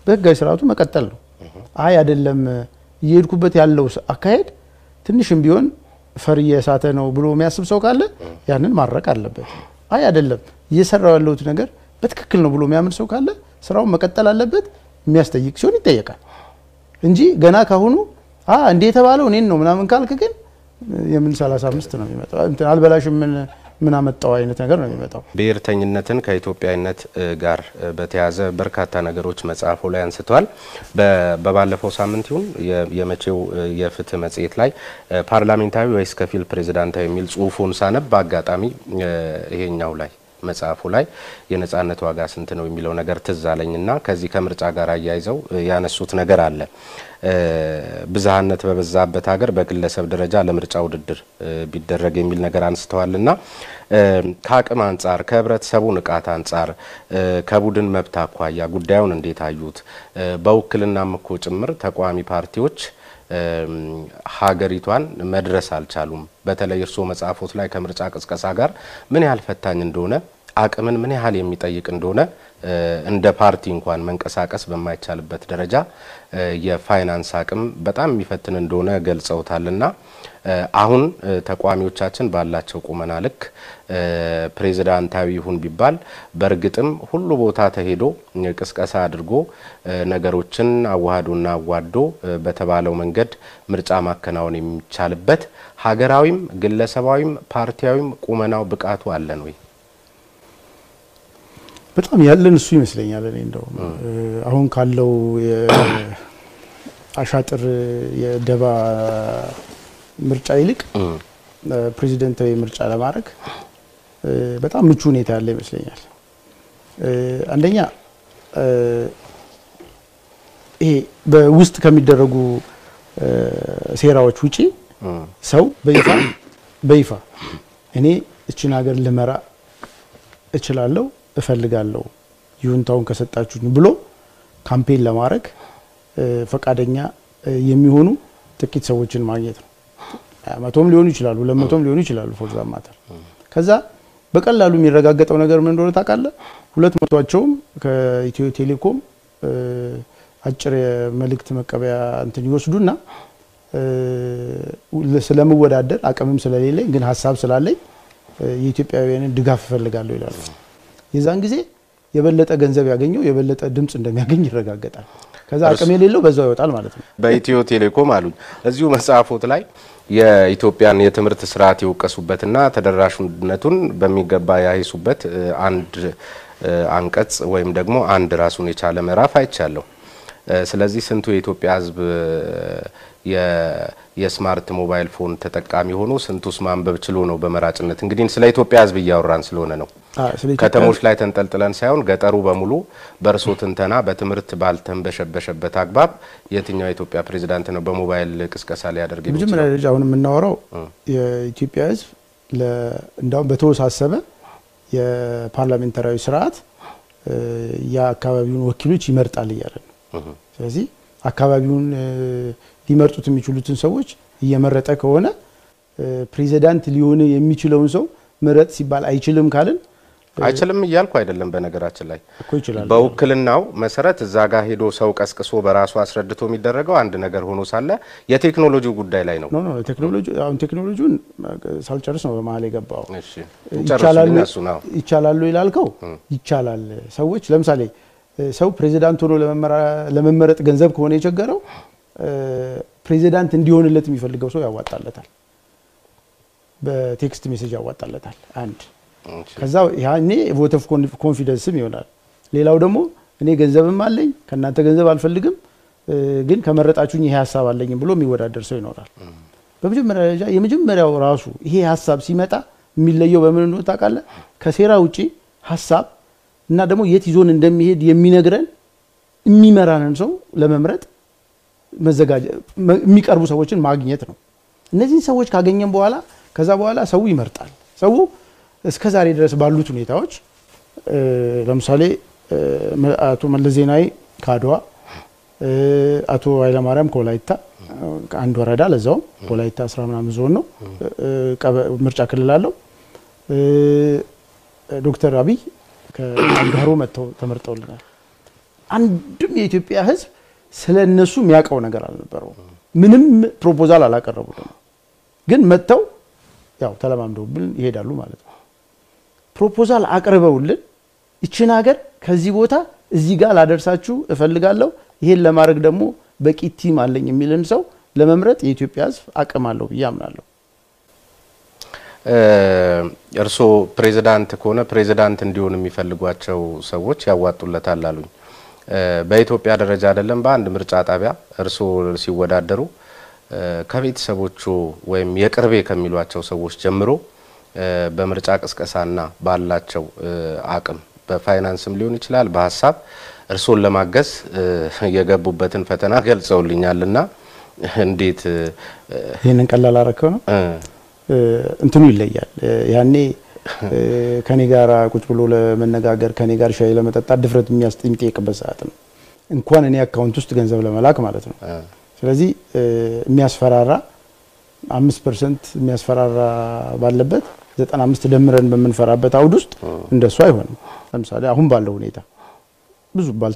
በህጋዊ ስርዓቱ መቀጠል ነው። አይደለም እየሄድኩበት ያለው አካሄድ ትንሽም ቢሆን ፈር እየሳተ ነው ብሎ የሚያስብ ሰው ካለ ያንን ማረቅ አለበት። አይደለም እየሰራው ያለው ነገር በትክክል ነው ብሎ የሚያምን ሰው ካለ ስራውን መቀጠል አለበት። የሚያስጠይቅ ሲሆን ይጠየቃል እንጂ ገና ካሁኑ እንዴ የተባለው እኔን ነው ምናምን ካልክ ግን የምን 35 ነው የሚመጣው እንትን አልበላሽም ምን አመጣው አይነት ነገር ነው የሚመጣው። ብሔርተኝነትን ከኢትዮጵያዊነት ጋር በተያያዘ በርካታ ነገሮች መጽሐፉ ላይ አንስተዋል። በባለፈው ሳምንት ይሁን የመቼው የፍትህ መጽሔት ላይ ፓርላሜንታዊ ወይስ ከፊል ፕሬዝዳንታዊ የሚል ጽሁፉን ሳነብ አጋጣሚ ይሄኛው ላይ መጽሐፉ ላይ የነጻነት ዋጋ ስንት ነው የሚለው ነገር ትዝ አለኝና ከዚህ ከምርጫ ጋር አያይዘው ያነሱት ነገር አለ። ብዝሃነት በበዛበት ሀገር በግለሰብ ደረጃ ለምርጫ ውድድር ቢደረግ የሚል ነገር አንስተዋልና ከአቅም አንጻር ከህብረተሰቡ ንቃት አንጻር ከቡድን መብት አኳያ ጉዳዩን እንዴት አዩት? በውክልናም እኮ ጭምር ተቋሚ ፓርቲዎች ሀገሪቷን መድረስ አልቻሉም። በተለይ እርሶ መጽሐፎት ላይ ከምርጫ ቅስቀሳ ጋር ምን ያህል ፈታኝ እንደሆነ አቅምን ምን ያህል የሚጠይቅ እንደሆነ እንደ ፓርቲ እንኳን መንቀሳቀስ በማይቻልበት ደረጃ የፋይናንስ አቅም በጣም የሚፈትን እንደሆነ ገልጸውታልና አሁን ተቋሚዎቻችን ባላቸው ቁመና ልክ ፕሬዝዳንታዊ ይሁን ቢባል በርግጥም ሁሉ ቦታ ተሄዶ ቅስቀሳ አድርጎ ነገሮችን አዋሃዶና አዋዶ በተባለው መንገድ ምርጫ ማከናወን የሚቻልበት ሀገራዊም ግለሰባዊም ፓርቲያዊም ቁመናው ብቃቱ አለን ወይ? በጣም ያለን እሱ ይመስለኛል። እኔ እንደው አሁን ካለው የአሻጥር የደባ ምርጫ ይልቅ ፕሬዚደንታዊ ምርጫ ለማድረግ በጣም ምቹ ሁኔታ ያለ ይመስለኛል። አንደኛ ይሄ በውስጥ ከሚደረጉ ሴራዎች ውጪ ሰው በይፋ እኔ እቺን ሀገር ልመራ እችላለሁ እፈልጋለሁ ይሁንታውን ከሰጣችሁኝ ብሎ ካምፔን ለማድረግ ፈቃደኛ የሚሆኑ ጥቂት ሰዎችን ማግኘት ነው። 100ም ሊሆኑ ይችላሉ 200ም ሊሆኑ ይችላሉ ፎር ዛት ማተር። ከዛ በቀላሉ የሚረጋገጠው ነገር ምን እንደሆነ ታውቃለህ? 200ቸውም ከኢትዮ ቴሌኮም አጭር የመልእክት መቀበያ እንትን ይወስዱና ስለምወዳደር አቅምም ስለሌለኝ ግን ሐሳብ ስላለኝ የኢትዮጵያውያንን ድጋፍ ፈልጋለሁ ይላሉ። የዛን ጊዜ የበለጠ ገንዘብ ያገኘው የበለጠ ድምጽ እንደሚያገኝ ይረጋገጣል። ከዛ አቅም የሌለው በዛው ይወጣል ማለት ነው። በኢትዮ ቴሌኮም አሉኝ እዚሁ መጽሐፎት ላይ የኢትዮጵያን የትምህርት ስርዓት ይወቀሱበትና ተደራሽነቱን በሚገባ ያይሱበት አንድ አንቀጽ ወይም ደግሞ አንድ ራሱን የቻለ ምዕራፍ አይቻለሁ። ስለዚህ ስንቱ የኢትዮጵያ ሕዝብ የስማርት ሞባይል ፎን ተጠቃሚ ሆኖ ስንቱስ ማንበብ ችሎ ነው በመራጭነት? እንግዲህ ስለ ኢትዮጵያ ሕዝብ እያወራን ስለሆነ ነው። ከተሞች ላይ ተንጠልጥለን ሳይሆን ገጠሩ በሙሉ በርሶ ትንተና በትምህርት ባልተንበሸበሸበት አግባብ የትኛው የኢትዮጵያ ፕሬዝዳንት ነው በሞባይል ቅስቀሳ ላይ ያደርግ ይችላል? መጀመሪያ ደረጃ አሁን የምናወራው የኢትዮጵያ ሕዝብ እንዳውም በተወሳሰበ የፓርላሜንታሪ ስርዓት የአካባቢውን ወኪሎች ይመርጣል እያለ ነው። ስለዚህ አካባቢውን ሊመርጡት የሚችሉትን ሰዎች እየመረጠ ከሆነ ፕሬዚዳንት ሊሆን የሚችለውን ሰው ምረጥ ሲባል አይችልም ካልን አይችልም እያልኩ አይደለም። በነገራችን ላይ እኮ ይችላል። በውክልናው መሰረት እዛ ጋር ሄዶ ሰው ቀስቅሶ በራሱ አስረድቶ የሚደረገው አንድ ነገር ሆኖ ሳለ የቴክኖሎጂው ጉዳይ ላይ ነው። ኖ ቴክኖሎጂውን ሳልጨርስ ነው በመሀል የገባው። እሺ ይቻላል ይላልከው ይቻላል። ሰዎች ለምሳሌ ሰው ፕሬዚዳንት ሆኖ ለመመረጥ ገንዘብ ከሆነ የቸገረው ፕሬዚዳንት እንዲሆንለት የሚፈልገው ሰው ያዋጣለታል፣ በቴክስት ሜሴጅ ያዋጣለታል አንድ። ከዛ ያኔ ቮት ኦፍ ኮንፊደንስም ይሆናል። ሌላው ደግሞ እኔ ገንዘብም አለኝ ከናንተ ገንዘብ አልፈልግም ግን ከመረጣችሁኝ ይሄ ሐሳብ አለኝ ብሎ የሚወዳደር ሰው ይኖራል። በመጀመሪያ ደረጃ የመጀመሪያው ራሱ ይሄ ሐሳብ ሲመጣ የሚለየው በምን ነው ታውቃለህ? ከሴራ ውጪ ሐሳብ እና ደግሞ የት ይዞን እንደሚሄድ የሚነግረን የሚመራንን ሰው ለመምረጥ መዘጋጀት የሚቀርቡ ሰዎችን ማግኘት ነው። እነዚህን ሰዎች ካገኘን በኋላ ከዛ በኋላ ሰው ይመርጣል። ሰው እስከ ዛሬ ድረስ ባሉት ሁኔታዎች ለምሳሌ አቶ መለስ ዜናዊ ከአድዋ፣ አቶ ኃይለማርያም ከወላይታ አንድ ወረዳ ለዛው ወላይታ 10 ምናምን ዞን ነው ምርጫ ክልል አለው። ዶክተር አብይ ከአጋሮ መጥተው ተመርጠውልናል። አንድም የኢትዮጵያ ሕዝብ ስለነሱ የሚያውቀው ነገር አልነበረው። ምንም ፕሮፖዛል አላቀረቡልንም፣ ግን መጥተው ያው ተለማምደውብን ይሄዳሉ ማለት ነው። ፕሮፖዛል አቅርበውልን እቺን ሀገር ከዚህ ቦታ እዚህ ጋር ላደርሳችሁ እፈልጋለሁ፣ ይሄን ለማድረግ ደግሞ በቂ ቲም አለኝ የሚልን ሰው ለመምረጥ የኢትዮጵያ ሕዝብ አቅም አለው ብዬ አምናለሁ። እርሶ ፕሬዚዳንት ከሆነ ፕሬዚዳንት እንዲሆን የሚፈልጓቸው ሰዎች ያዋጡለታል አሉኝ። በኢትዮጵያ ደረጃ አይደለም በአንድ ምርጫ ጣቢያ እርሶ ሲወዳደሩ ከቤተሰቦቹ ወይም የቅርቤ ከሚሏቸው ሰዎች ጀምሮ በምርጫ ቅስቀሳና ባላቸው አቅም በፋይናንስም ሊሆን ይችላል በሐሳብ እርሶን ለማገዝ የገቡበትን ፈተና ገልጸውልኛልና እንዴት ይሄንን ቀላል አረከው ነው? እንትኑ ይለያል። ያኔ ከኔ ጋር ቁጭ ብሎ ለመነጋገር ከኔ ጋር ሻይ ለመጠጣት ድፍረት የሚያስጠይቅበት ሰዓት ነው። እንኳን እኔ አካውንት ውስጥ ገንዘብ ለመላክ ማለት ነው። ስለዚህ የሚያስፈራራ 5% የሚያስፈራራ ባለበት 95 ደምረን በመንፈራበት አውድ ውስጥ እንደሱ አይሆንም። ለምሳሌ አሁን ባለው ሁኔታ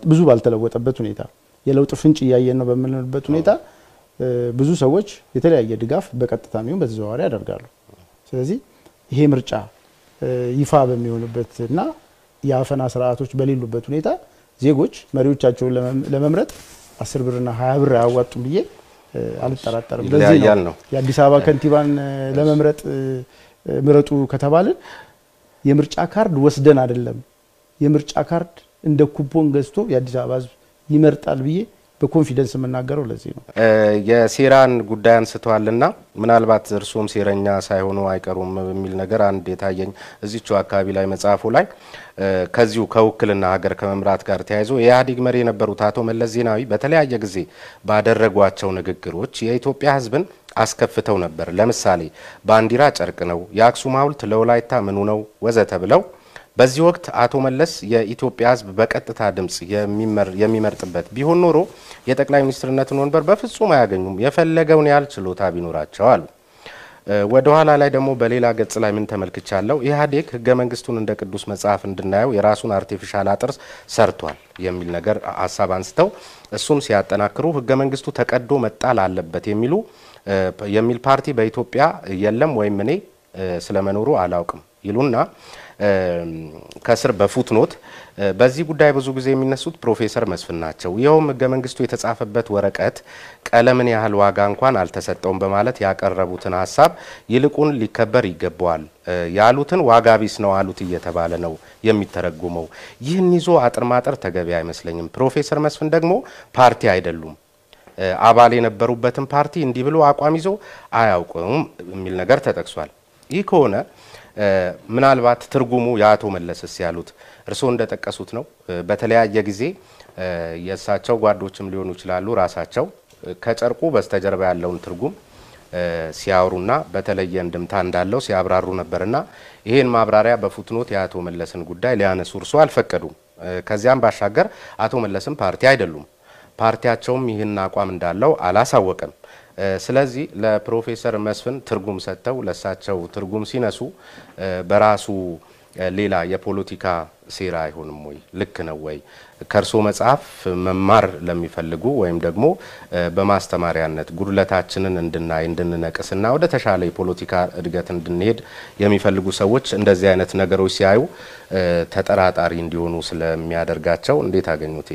ብዙ ባልተለወጠበት ሁኔታ የለውጥ ፍንጭ ያያየን ነው በመንልበት ሁኔታ ብዙ ሰዎች የተለያየ ድጋፍ በቀጥታም ይሁን በተዘዋዋሪ ያደርጋሉ። ስለዚህ ይሄ ምርጫ ይፋ በሚሆንበትና የአፈና ስርዓቶች በሌሉበት ሁኔታ ዜጎች መሪዎቻቸውን ለመምረጥ 10 ብርና 20 ብር ያዋጡም ብዬ አልጠራጠርም። ለዚህ ነው የአዲስ አበባ ከንቲባን ለመምረጥ ምረጡ ከተባልን የምርጫ ካርድ ወስደን አይደለም፣ የምርጫ ካርድ እንደ ኩፖን ገዝቶ የአዲስ አበባ ሕዝብ ይመርጣል ብዬ በኮንፊደንስ መናገረው ለዚህ ነው። የሴራን ጉዳይ አንስተዋልና ምናልባት እርሶም ሴረኛ ሳይሆኑ አይቀሩም የሚል ነገር አንድ የታየኝ እዚቹ አካባቢ ላይ መጽሐፉ ላይ ከዚሁ ከውክልና ሀገር ከመምራት ጋር ተያይዞ የኢህአዴግ መሪ የነበሩት አቶ መለስ ዜናዊ በተለያየ ጊዜ ባደረጓቸው ንግግሮች የኢትዮጵያ ሕዝብን አስከፍተው ነበር። ለምሳሌ ባንዲራ ጨርቅ ነው፣ የአክሱም ሐውልት ለወላይታ ምኑ ነው ወዘተ ብለው በዚህ ወቅት አቶ መለስ የኢትዮጵያ ሕዝብ በቀጥታ ድምጽ የሚመርጥበት ቢሆን ኖሮ የጠቅላይ ሚኒስትርነትን ወንበር በፍጹም አያገኙም፣ የፈለገውን ያህል ችሎታ ቢኖራቸው አሉ። ወደ ኋላ ላይ ደግሞ በሌላ ገጽ ላይ ምን ተመልክቻለሁ? ኢህአዴግ ህገ መንግስቱን እንደ ቅዱስ መጽሐፍ እንድናየው የራሱን አርቲፊሻል አጥር ሰርቷል የሚል ነገር ሐሳብ አንስተው እሱን ሲያጠናክሩ ህገ መንግስቱ ተቀዶ መጣል አለበት የሚል ፓርቲ በኢትዮጵያ የለም ወይም እኔ ስለመኖሩ አላውቅም ይሉና ከስር በፉትኖት በዚህ ጉዳይ ብዙ ጊዜ የሚነሱት ፕሮፌሰር መስፍን ናቸው። ይኸውም ህገ መንግስቱ የተጻፈበት ወረቀት ቀለምን ያህል ዋጋ እንኳን አልተሰጠውም በማለት ያቀረቡትን ሐሳብ ይልቁን ሊከበር ይገባዋል ያሉትን ዋጋ ቢስ ነው አሉት እየተባለ ነው የሚተረጉመው። ይህን ይዞ አጥር ማጠር ተገቢ አይመስለኝም። ፕሮፌሰር መስፍን ደግሞ ፓርቲ አይደሉም፣ አባል የነበሩበትን ፓርቲ እንዲህ ብሎ አቋም ይዞ አያውቁም የሚል ነገር ተጠቅሷል። ይህ ከሆነ ምናልባት ትርጉሙ የአቶ መለስስ ያሉት እርስዎ እንደጠቀሱት ነው። በተለያየ ጊዜ የእሳቸው ጓዶችም ሊሆኑ ይችላሉ ራሳቸው ከጨርቁ በስተጀርባ ያለውን ትርጉም ሲያወሩና በተለየ እንድምታ እንዳለው ሲያብራሩ ነበርና ይሄን ማብራሪያ በፉትኖት የአቶ መለስን ጉዳይ ሊያነሱ እርስዎ አልፈቀዱም። ከዚያም ባሻገር አቶ መለስም ፓርቲ አይደሉም ፓርቲያቸውም ይህን አቋም እንዳለው አላሳወቀም ስለዚህ ለፕሮፌሰር መስፍን ትርጉም ሰጥተው ለሳቸው ትርጉም ሲነሱ በራሱ ሌላ የፖለቲካ ሴራ አይሆንም ወይ ልክ ነው ወይ ከርሶ መጽሐፍ መማር ለሚፈልጉ ወይም ደግሞ በማስተማሪያነት ጉድለታችንን እንድናይ እንድንነቅስና ወደ ተሻለ የፖለቲካ እድገት እንድንሄድ የሚፈልጉ ሰዎች እንደዚህ አይነት ነገሮች ሲያዩ ተጠራጣሪ እንዲሆኑ ስለሚያደርጋቸው እንዴት አገኙት